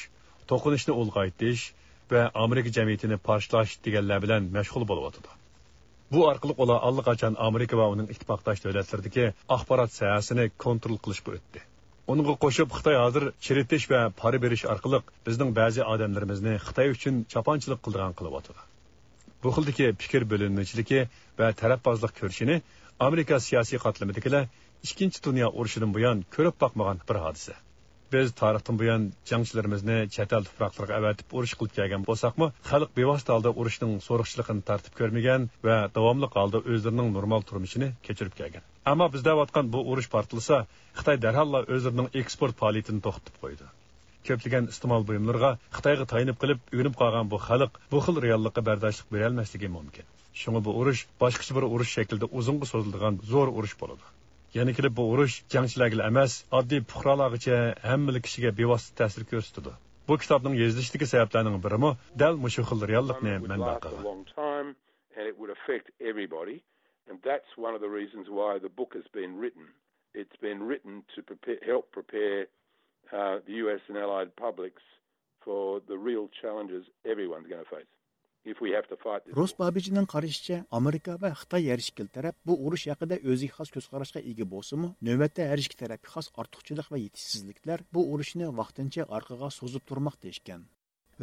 توقۇنۇشنى ئۇلغايتىش ۋە ئامېرىكا جەمئىيىتىنى پارچىلاش دېگەنلەر بىلەن مەشغۇل بولۇۋاتىدۇ. بۇ ئارقىلىق ئۇلار ئاللىقاچان ئامېرىكا ۋە ئۇنىڭ ئىتتىپاقداش دۆلەتلىرىدىكى ئاخبارات ساھەسىنى كونترول قىلىشقا ئۆتتى. ئۇنىڭغا قوشۇپ، خىتاي ھازىر چىرىتىش ۋە پارا بېرىش ئارقىلىق بىزنىڭ بەزى ئادەملىرىمىزنى خىتاي ئۈچۈن چاپانچىلىق قىلىدىغان قىلىۋاتىدۇ. بۇ خىلدىكى پىكىر بۆلۈنمىچىلىكى ۋە تەرەپبازلىق كۆرۈشىنى ئامېرىكا سىياسىي قاتلىمىدىكىلەر ئىككىنچى دۇنيا ئۇرۇشىدىن بۇيان كۆرۈپ باقمىغان بىر ھادىسە. بىز تارىختىن بۇيان جەڭچىلىرىمىزنى چەت ئەل تۇپراقلىرىغا ئەۋەتىپ ئۇرۇش قىلىپ كەلگەن بولساقمۇ، خەلق بىۋاسىتە ھالدا ئۇرۇشنىڭ سورۇقچىلىقىنى تارتىپ كۆرمىگەن ۋە داۋاملىق ھالدا ئۆزلىرىنىڭ نورمال تۇرمۇشىنى كەچۈرۈپ كەلگەن. ئەمما بىز دەۋاتقان بۇ ئۇرۇش پارتلىسا، خىتاي دەرھاللا ئۆزلىرىنىڭ ئېكسپورت پائالىيىتىنى توختىتىپ قويىدۇ. كۆپلىگەن ئىستېمال بۇيۇملىرىغا خىتايغا تايىنىپ قېلىپ ئۆگىنىپ قالغان بۇ خەلق بۇ خىل رېئاللىققا بەرداشلىق بېرەلمەسلىكى مۇمكىن. شۇڭا بۇ ئۇرۇش باشقىچە بىر ئۇرۇش شەكلىدە ئۇزۇنغا سوزۇلىدىغان زور ئۇرۇش بولىدۇ. يەنە كېلىپ بۇ ئۇرۇش جەڭچىلەرگىلا ئەمەس، ئاددىي پۇقرالارغىچە ھەممىلا كىشىگە بىۋاسىتە تەسىر كۆرسىتىدۇ. بۇ كىتابنىڭ يېزىلىشىدىكى سەۋەبلەرنىڭ بىرىمۇ دەل مۇشۇ خىل رېئاللىقنى مەنبە قىلغان. And it would affect everybody. And that's one of the reasons why the book has been written. It's been written to prepare, help prepare uh, the U S and allied publics for the real challenges everyone's going to face if we have to fight this. روس بابىچنىڭ قارىشىچە، ئامېرىكا ۋە خىتاي ھەر ئىككىلا تەرەپ بۇ ئۇرۇش ھەققىدە ئۆزىگە خاس كۆز قاراشقا ئىگە بولسىمۇ، نۆۋەتتە ھەر ئىككى تەرەپكە خاس ئارتۇقچىلىق ۋە يېتىشسىزلىكلەر بۇ ئۇرۇشنى ۋاقتىنچە ئارقىغا سوزۇپ تۇرماقتا ئىكەن.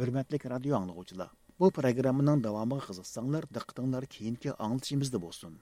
ھۆرمەتلىك رادىيو ئاڭلىغۇچىلار، بۇ پروگراممىنىڭ داۋامىغا قىزىقساڭلار، دىققىتىڭلار كېيىنكى ئاڭلىتىشىمىزدا بولسۇن.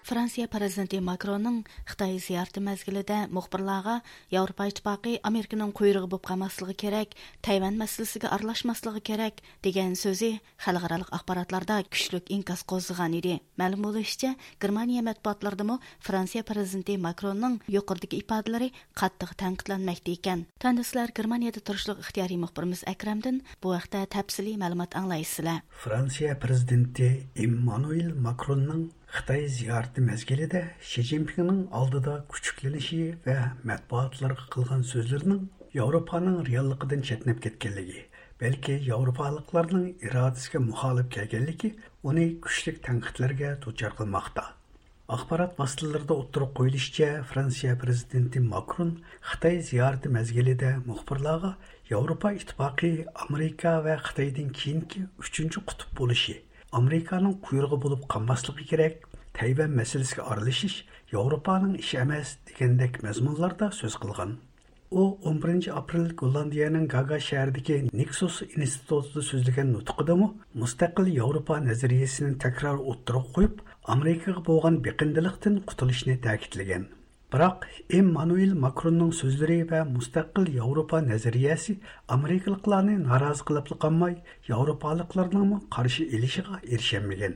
فرانسىيە پىرېزىدېنتى ماكروننىڭ خىتاي زىيارىتى مەزگىلىدە مۇخبىرلارغا ياۋروپا ئىتتىپاقى ئامېرىكىنىڭ قۇيرۇقى بولۇپ قالماسلىقى كېرەك، تەيۋەن مەسىلىسىگە ئارىلاشماسلىقى كېرەك دېگەن سۆزى خەلقئارالىق ئاخباراتلاردا كۈچلۈك ئىنكاس قوزغىغان ئىدى. مەلۇم بولۇشىچە، گېرمانىيە مەتبۇئاتلىرىدىمۇ فرانسىيە پىرېزىدېنتى ماكروننىڭ يۇقىرىدىكى ئىپادىلىرى قاتتىق تەنقىدلەنمەكتە ئىكەن. تۆۋەندە سىلەر گېرمانىيەدە تۇرۇشلۇق ئىختىيارىي مۇخبىرىمىز ئەكرەمدىن بۇ ھەقتە تەپسىلىي مەلۇمات ئاڭلايسىلەر. فرانسىيە پىرېزىدېنتى ئېممانۇئېل ماكروننىڭ خىتاي زىيارىتى مەزگىلىدە شى جىنپىڭنىڭ ئالدىدا كۈچۈكلىنىشى ۋە مەتبۇئاتلارغا قىلغان سۆزلىرىنىڭ ياۋروپانىڭ رېئاللىقىدىن چەتنەپ كەتكەنلىكى، بەلكى ياۋروپالىقلارنىڭ ئىرادىسىگە مۇخالىپ كەلگەنلىكى ئۇنى كۈچلۈك تەنقىدلەرگە دۇچار قىلماقتا. ئاخبارات ۋاسىتىلىرىدا ئوتتۇرىغا قويۇلۇشىچە، فرانسىيە پىرېزىدېنتى ماكرون خىتاي زىيارىتى مەزگىلىدە مۇخبىرلارغا ياۋروپا ئىتتىپاقى ئامېرىكا ۋە خىتايدىن كېيىنكى ئۈچىنچى قۇتۇپ بولۇشى، ئامېرىكانىڭ قۇيرۇقى بولۇپ قالماسلىقى كېرەك، تەيۋەن مەسىلىسىگە ئارىلىشىش ياۋروپانىڭ ئىشى ئەمەس دېگەندەك مەزمۇنلاردا سۆز قىلغان. ئۇ ئون بىرىنچى ئاپرېل گوللاندىيەنىڭ گاگا شەھىرىدىكى نىكسوس ئىنستىتۇتىدا سۆزلىگەن نۇتقىدا مۇستەقىل ياۋروپا نەزەرىيەسىنى تەكرار ئوتتۇرىغا قويۇپ، ئامېرىكىغا بولغان بېقىندىلىقتىن قۇتۇلۇشنى تەكىتلىگەن. بىراق ئېممانۇئېل ماكروننىڭ سۆزلىرى ۋە مۇستەقىل ياۋروپا نەزەرىيەسى ئامېرىكىلىقلارنى نارازى قىلىپلا قالماي، ياۋروپالىقلارنىڭمۇ قارشى ئېلىشىغا ئېرىشەلمىگەن.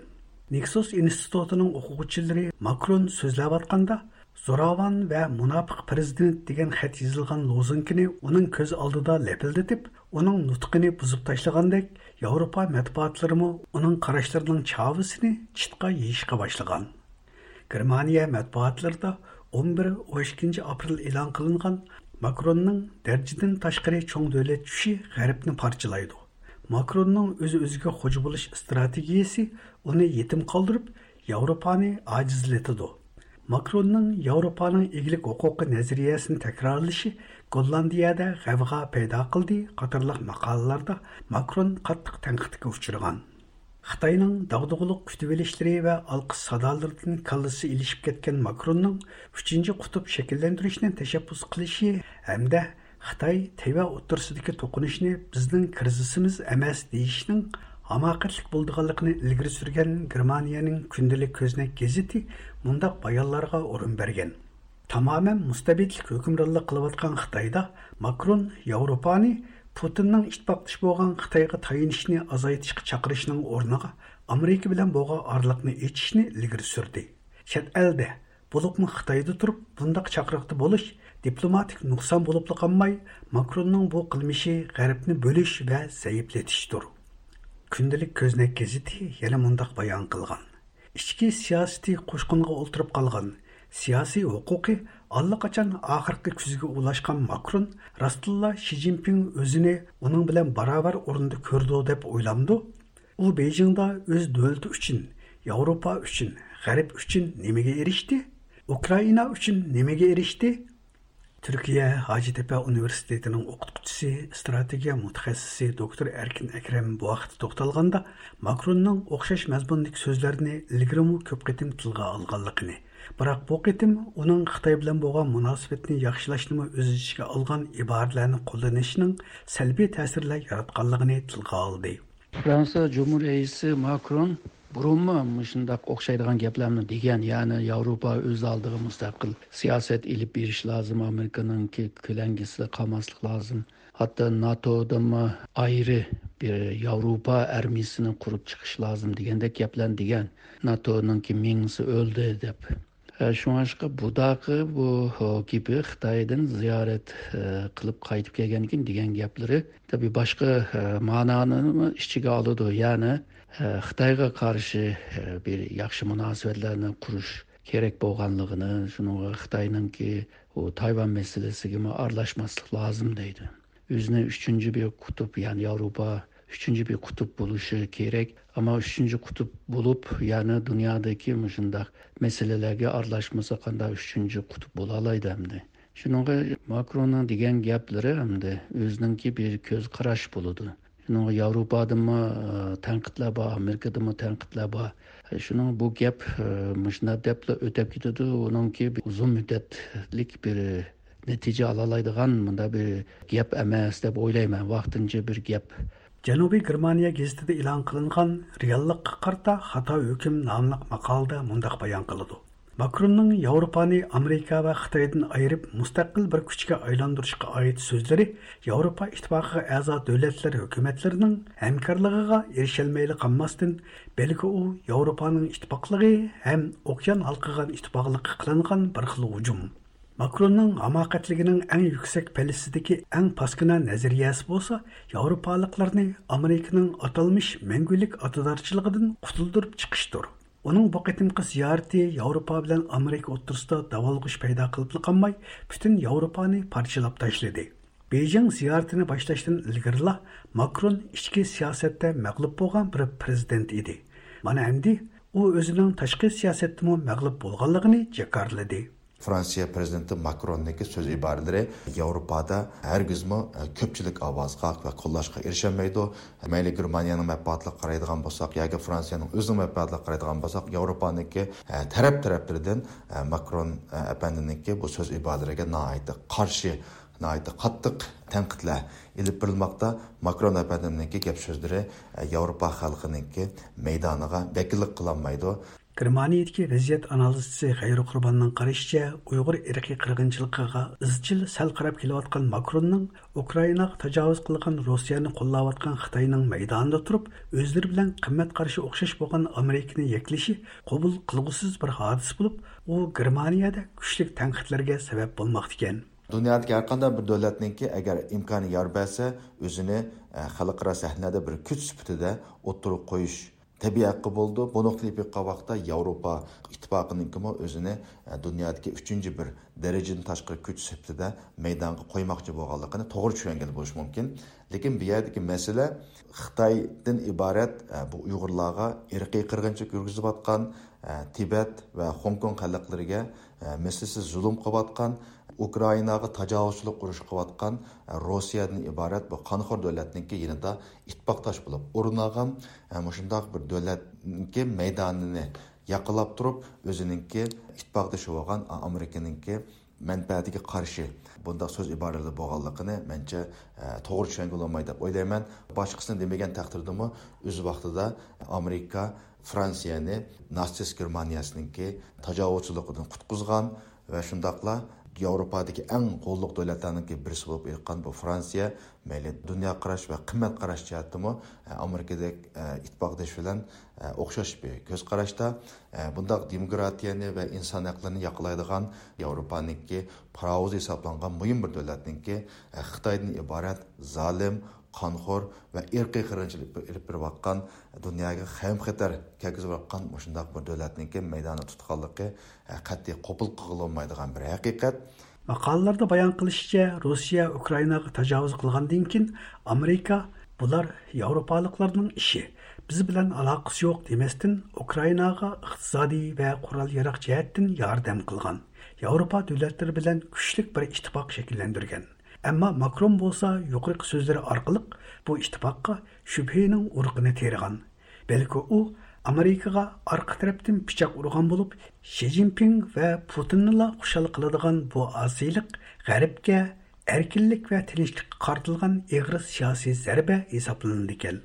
نىكسوس ئىنستىتۇتىنىڭ ئوقۇغۇچىلىرى ماكرون سۆزلەۋاتقاندا زوراۋان ۋە مۇناپىق پىرېزىدېنت دېگەن خەت يېزىلغان لوزۇنكىنى ئۇنىڭ كۆز ئالدىدا لەپىلدىتىپ، ئۇنىڭ نۇتقىنى بۇزۇپ تاشلىغاندەك، ياۋروپا مەتبۇئاتلىرىمۇ ئۇنىڭ قاراشلىرىنىڭ چاۋىسىنى چىتقا يېيىشقا باشلىغان. گېرمانىيە مەتبۇئاتلىرىدا ئون بىر، ئون ئىككىنچى ئاپرېل ئېلان قىلىنغان ماكروننىڭ دەرىجىدىن تاشقىرى چوڭ دۆلەت چۈشى غەربنى پارچىلايدۇ، ماكروننىڭ ئۆز-ئۆزىگە خوجا بولۇش ئىستراتېگىيىسى ئۇنى يېتىم قالدۇرۇپ، ياۋروپانى ئاجىزلىتىدۇ. ماكروننىڭ ياۋروپانىڭ ئىگىلىك ھوقۇقى نەزەرىيەسىنى تەكرارلىشى گوللاندىيەدە غەۋغا پەيدا قىلدى قاتارلىق ماقالىلاردا ماكرون قاتتىق تەنقىدكە ئۇچرىغان. خىتاينىڭ داغدۇغىلىق كۈتۈۋېلىشلىرى ۋە ئالقىش سادالىرىدىن كاللىسى ئېلىشىپ كەتكەن ماكروننىڭ ئۈچىنچى قۇتۇپ شەكىللەندۈرۈشنى تەشەببۇس قىلىشى ھەمدە خىتاي تەيۋەن ئوتتۇرىسىدىكى توقۇنۇشنى بىزنىڭ كىرىزىسىمىز ئەمەس دېيىشنىڭ ھاماقەتلىك بولىدىغانلىقىنى ئىلگىرى سۈرگەن گېرمانىيەنىڭ كۈندىلىك كۆزنەك گېزىتى مۇنداق بايانلارغا ئورۇن بەرگەن. تامامەن مۇستەبىتلىك ھۆكۈمرانلىق قىلىۋاتقان خىتايدا ماكرون ياۋروپانى پۇتىننىڭ ئىتتىپاقدىشى بولغان خىتايغا تايىنىشنى ئازايتىشقا چاقىرىشنىڭ ئورنىغا ئامېرىكا بىلەن بولغان ئارىلىقنى ئېچىشنى ئىلگىرى سۈردى. چەت ئەلدە، بولۇپمۇ خىتايدا تۇرۇپ بۇنداق چاقىرىقتا بولۇش دىپلوماتىك نۇقسان بولۇپلا قالماي، ماكروننىڭ بۇ قىلمىشى غەربنى بۆلۈش ۋە زەئىپلىتىشتۇر. كۈندىلىك كۆزنەك گېزىتى يەنە مۇنداق بايان قىلغان: ئىچكى سىياسىتى قوشقىنىغا ئولتۇرۇپ قالغان، سىياسىي ھوقۇقى ئاللىقاچان ئاخىرقى كۈزگە ئۇلاشقان ماكرون راستتىنلا شى جىنپىڭ ئۆزىنى ئۇنىڭ بىلەن باراۋەر ئورۇندا كۆرىدۇ دەپ ئويلامدۇ؟ ئۇ بېيجىڭدا ئۆز دۆلىتى ئۈچۈن، ياۋروپا ئۈچۈن، غەرب ئۈچۈن نېمىگە ئېرىشتى؟ ئۇكرائىنا ئۈچۈن نېمىگە ئېرىشتى؟ تۈركىيە ھاجىتېپە ئۇنىۋېرسىتېتىنىڭ ئوقۇتقۇچىسى، ئىستراتېگىيە مۇتەخەسسىسى دوكتور ئەركىن ئەكرەم بۇ ھەقتە توختالغاندا، ماكروننىڭ ئوخشاش مەزمۇندىكى سۆزلەرنى ئىلگىرىمۇ كۆپ قېتىم تىلغا ئالغانلىقىنى، بىراق بۇ قېتىم ئۇنىڭ خىتاي بىلەن بولغان مۇناسىۋەتنى ياخشىلاشنىمۇ ئۆز ئىچىگە ئالغان ئىبارىلەرنى قوللىنىشىنىڭ سەلبىي تەسىرلەر ياراتقانلىقىنى تىلغا ئالدى. فرانسىيە جۇمھۇر رەئىسى ماكرون بۇرۇنمۇ مۇشۇنداق ئوخشايدىغان گەپلەرنى دېگەن، يەنى ياۋروپا ئۆز ئالدىغا مۇستەقىل سىياسەت ئېلىپ بېرىش لازىم، ئامېرىكىنىڭكى كۆلەڭگىسىدە قالماسلىق لازىم، ھەتتا ناتودىنمۇ ئايرى بىر ياۋروپا ئارمىيىسىنى قۇرۇپ چىقىش لازىم دېگەندەك گەپلەرنى دېگەن. ناتونىڭكى مېڭىسى ئۆلدى دەپ. ئە، شۇڭلاشقا بۇداقى بۇ، ھو، گېپى خىتايدىن زىيارەت، ئە، قىلىپ قايتىپ كەلگەندىن كېيىن دېگەن گەپلىرى، تەبىئىي، باشقا، ئە، مەنانىمۇ ئىچىگە ئالىدۇ. يەنى، ئە، خىتايغا قارشى، ئە، بىر ياخشى مۇناسىۋەتلەرنى قۇرۇش كېرەك بولغانلىقىنى، شۇنىڭغا خىتاينىڭكى ئۇ تايۋان مەسىلىسىگىمۇ ئارىلاشماسلىق لازىم دەيدۇ. ئۆزىنى ئۈچىنچى بىر قۇتۇپ، يەنى ياۋروپا ئۈچىنچى بىر قۇتۇپ بولۇشى كېرەك. ئەمما ئۈچىنچى قۇتۇپ بولۇپ، يەنى دۇنيادىكى مۇشۇنداق مەسىلىلەرگە ئارىلاشمىسا، قانداق ئۈچىنچى قۇتۇپ بولالايدۇ ئەمدى؟ شۇنىڭغا ماكروننىڭ دېگەن گەپلىرى ئەمدى ئۆزىنىڭكى بىر كۆز قاراش بولىدۇ. شۇنىڭغا ياۋروپادىمۇ، ئە، تەنقىدلەر بار، ئامېرىكىدىمۇ تەنقىدلەر بار. شۇنىڭ بۇ گەپ، ئە، مۇشۇنداق دەپلا ئۆتەپ كېتىدۇ. ئۇنىڭكى بىر ئۇزۇن مۇددەتلىك بىر نەتىجە ئالالايدىغان مۇنداق بىر گەپ ئەمەس دەپ ئويلايمەن، ۋاقتىنچە بىر گەپ. جەنۇبىي گېرمانىيە گېزىتىدە ئېلان قىلىنغان رېئاللىققا قارىتا خاتا ھۆكۈم ناملىق ماقالىدە مۇنداق بايان قىلىدۇ: ماكروننىڭ ياۋروپانى ئامېرىكا ۋە خىتايدىن ئايرىپ، مۇستەقىل بىر كۈچكە ئايلاندۇرۇشقا ئائىت سۆزلىرى ياۋروپا ئىتتىپاقىغا ئەزا دۆلەتلەر ھۆكۈمەتلىرىنىڭ ھەمكارلىقىغا ئېرىشەلمەيلا قالماستىن، بەلكى ئۇ ياۋروپانىڭ ئىتتىپاقلىقى ھەم ئوكيان ھالقىغان ئىتتىپاقلىققا قىلىنغان بىر خىل ھۇجۇم. ماكروننىڭ ھاماقەتلىكىنىڭ ئەڭ يۈكسەك پەللىسىدىكى ئەڭ پاسكىنا نەزەرىيەسى بولسا، ياۋروپالىقلارنى ئامېرىكىنىڭ ئاتالمىش مەڭگۈلۈك ئاتىدارچىلىقىدىن قۇتۇلدۇرۇپ چىقىشتۇر. ئۇنىڭ بۇ قېتىمقى زىيارىتى ياۋروپا بىلەن ئامېرىكا ئوتتۇرىسىدا داۋالغۇش پەيدا قىلىپلا قالماي، پۈتۈن ياۋروپانى پارچىلاپ تاشلىدى. بېيجىڭ زىيارىتىنى باشلاشتىن ئىلگىرىلا ماكرون ئىچكى سىياسەتتە مەغلۇپ بولغان بىر پىرېزىدېنت ئىدى. مانا ئەمدى ئۇ ئۆزىنىڭ تاشقى سىياسەتتىمۇ مەغلۇپ بولغانلىقىنى جاكارلىدى. فرانسىيە پىرېزىدېنتى ماكروننىڭكى سۆز ئىبارىلىرى ياۋروپادا ھەرگىزمۇ، ئە، كۆپچىلىك ئاۋازغا ۋە قوللاشقا ئېرىشەلمەيدۇ. مەيلى گېرمانىيەنىڭ مەنپەئەتىگە قارايدىغان بولساق ياكى فرانسىيەنىڭ ئۆزىنىڭ مەنپەئەتىگە قارايدىغان بولساق، ياۋروپانىڭكى، ئە، تەرەپ تەرەپلىرىدىن، ئە، ماكرون، ئە، ئەپەندىنىڭكى بۇ سۆز ئىبارىلىرىگە ناھايىتى قارشى، ناھايىتى قاتتىق تەنقىدلەر ئېلىپ بېرىلماقتا. ماكرون ئەپەندىمنىڭكى گەپ سۆزلىرى، ئە، ياۋروپا خەلقىنىڭكى مەيدانىغا ۋەكىللىك قىلالمايدۇ. گېرمانىيەدىكى ۋەزىيەت ئانالىزچىسى غەيرۇ قۇرباننىڭ قارىشىچە، ئۇيغۇر ئىرقىي قىرغىنچىلىقىغا ئىزچىل سەل قاراپ كېلىۋاتقان ماكروننىڭ ئۇكرائىناغا تاجاۋۇز قىلغان روسىيەنى قوللاۋاتقان خىتاينىڭ مەيدانىدا تۇرۇپ، ئۆزلىرى بىلەن قىممەت قارىشى ئوخشاش بولغان ئامېرىكىنى يەكلىشى قوبۇل قىلغۇسىز بىر ھادىسە بولۇپ، ئۇ گېرمانىيەدە كۈچلۈك تەنقىدلەرگە سەۋەب بولماقتىكەن. دۇنيادىكى ھەر قانداق بىر دۆلەتنىڭكى ئەگەر ئىمكانى يار بەرسە، ئۆزىنى، ئە، خەلقئارا سەھنىدە بىر كۈچ سۈپىتىدە ئوتتۇرىغا قويۇش تەبىئىي ھەققى بولىدۇ. بۇنىڭغا تېلىپ باققان ۋاقىتتا ياۋروپا ئىتتىپاقىنىڭكىمۇ ئۆزىنى، ئە، دۇنيادىكى ئۈچىنچى بىر دەرىجىدىن تاشقىرى كۈچ سۈپىتىدە مەيدانغا قويماقچى بولغانلىقىنى توغرا چۈشەنگىلى بولۇشى مۇمكىن. لېكىن بۇ يەردىكى مەسىلە خىتايدىن ئىبارەت، ئە، بۇ ئۇيغۇرلارغا ئىرقىي قىرغىنچىلىق يۈرگۈزۈۋاتقان، ئە، تىبەت ۋە خوڭكوڭ خەلقلىرىگە، ئە، مىسلىسىز زۇلۇم قىلىۋاتقان، ئۇكرائىناغا تاجاۋۇزچىلىق ئۇرۇشى قىلىۋاتقان، ئە، روسىيەدىن ئىبارەت بۇ قانخور دۆلەتنىڭكى يېنىدا ئىتتىپاقداش بولۇپ ئورۇن ئالغان، ئە، مۇشۇنداق بىر دۆلەتنىڭكى مەيدانىنى ياقىلاپ تۇرۇپ، ئۆزىنىڭكى ئىتتىپاقدىشى بولغان، ئە، ئامېرىكىنىڭكى مەنپەئەتىگە قارشى بۇنداق سۆز ئىبارىلىرى بولغانلىقىنى مەنچە، ئە، توغرا چۈشەنگىلى بولمايدۇ دەپ ئويلايمەن. باشقىسىنى دېمىگەن تەقدىردىمۇ، ئۆز ۋاقتىدا ئامېرىكا فرانسىيەنى ناتسىست گېرمانىيەسىنىڭكى تاجاۋۇزچىلىقىدىن قۇتقۇزغان ۋە شۇنداقلا ياۋروپادىكى ئەڭ غوللۇق دۆلەتلەرنىڭكى بىرسى بولۇپ ئېيتقان بۇ فرانسىيە مەيلى دۇنيا قاراش ۋە قىممەت قاراش جەھەتتىمۇ، ئە، ئامېرىكىدەك، ئە، ئىتتىپاقدىشى بىلەن، ئە، ئوخشاش بىر كۆز قاراشتا. ئە، بۇنداق دېموكراتىيەنى ۋە ئىنسان ھەقلىرىنى ياقلايدىغان ياۋروپانىڭكى پاراۋۇزى ھېسابلانغان مۇھىم بىر دۆلەتنىڭكى، ئە، خىتايدىن ئىبارەت زالىم، قانخور ۋە ئىرقىي قىرغىنچىلىق ئېلىپ بېرىۋاتقان، دۇنياغا خەۋپ-خەتەر كەلگۈزۈۋاتقان مۇشۇنداق بىر دۆلەتنىڭكى مەيداندا تۇتقانلىقى، ئە، قەتئىي قوبۇل قىلغىلى بولمايدىغان بىر ھەقىقەت. ماقالىلەردە بايان قىلىشىچە، روسىيە ئۇكرائىناغا تاجاۋۇز قىلغاندىن كېيىن، ئامېرىكا «بۇلار ياۋروپالىقلارنىڭ ئىشى، بىز بىلەن ئالاقىسى يوق» دېمەستىن، ئۇكرائىناغا ئىقتىسادىي ۋە قورال-ياراغ جەھەتتىن ياردەم قىلغان، ياۋروپا دۆلەتلىرى بىلەن كۈچلۈك بىر ئىتتىپاق شەكىللەندۈرگەن. ئەمما ماكرون بولسا يۇقىرىقى سۆزلىرى ئارقىلىق بۇ ئىتتىپاققا شۈبھىنىڭ ئۇرۇقىنى تېرىغان. بەلكى ئۇ ئامېرىكىغا ئارقا تەرەپتىن پىچاق ئۇرغان بولۇپ، شى جىنپىڭ ۋە پۇتىننىلا خۇشال قىلىدىغان بۇ ئاسىيلىق غەربكە ئەركىنلىك ۋە تىنچلىققا قارىتىلغان ئېغىر سىياسىي زەربە ھېسابلىنىدىكەن.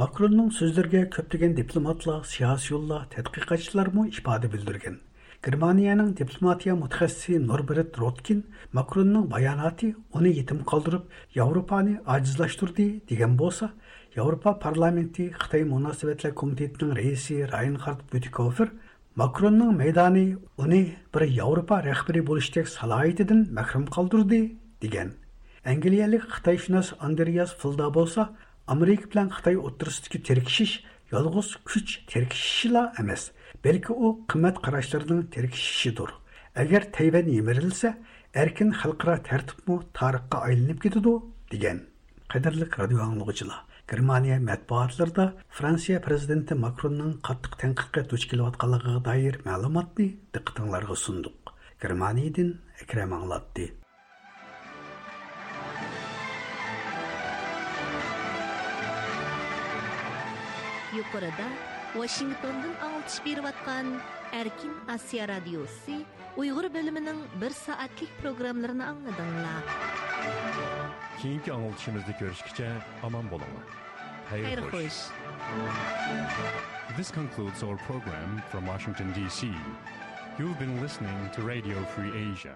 ماكروننىڭ سۆزلىرىگە كۆپلىگەن دىپلوماتلار، سىياسىيونلار، تەتقىقاتچىلارمۇ ئىپادە بىلدۈرگەن. گېرمانىيەنىڭ دىپلوماتىيە مۇتەخەسسىسى نوربېرت روتكىن ماكروننىڭ باياناتى ئۇنى يېتىم قالدۇرۇپ، ياۋروپانى ئاجىزلاشتۇردى دېگەن بولسا، ياۋروپا پارلامېنتى خىتاي مۇناسىۋەتلەر كومىتېتىنىڭ رەئىسى راينخارد بيۇتىكوفېر ماكروننىڭ مەيدانى ئۇنى بىر ياۋروپا رەھبىرى بولۇشتەك سالاھىيىتىدىن مەھرۇم قالدۇردى، دېگەن. ئەنگلىيەلىك خىتايشۇناس ئاندرېياس فىلدا بولسا، ئامېرىكا بىلەن خىتاي ئوتتۇرىسىدىكى تىركىشىش يالغۇز كۈچ تىركىشىشىلا ئەمەس، بەلكى ئۇ قىممەت قاراشلىرىنىڭ تىركىشىشىدۇر. ئەگەر تەيۋەن يىمىرىلسە، ئەركىن خەلقئارا تەرتىپمۇ تارىخقا ئايلىنىپ كېتىدۇ، دېگەن. قەدىرلىك رادىيو ئاڭلىغۇچىلار، گېرمانىيە مەتبۇئاتلىرىدا فرانسىيە پىرېزىدېنتى ماكروننىڭ قاتتىق تەنقىدكە دۇچ كېلىۋاتقانلىقىغا دائىر مەلۇماتنى دىققىتىڭلارغا سۇندۇق. گېرمانىيەدىن ئەكرەم ئاڭلاتتى. يۇقىرىدا ۋاشىنگتوندىن ئاڭلىتىش بېرىۋاتقان ئەركىن ئاسىيا رادىيوسى ئۇيغۇر بۆلۈمىنىڭ بىر سائەتلىك پروگراممىلىرىنى ئاڭلىدىڭلار. كېيىنكى ئاڭلىتىشىمىزدا كۆرۈشكىچە ئامان بولۇڭلار. خەير خەير خوش. This concludes our program from Washington, D C. You've been listening to Radio Free Asia.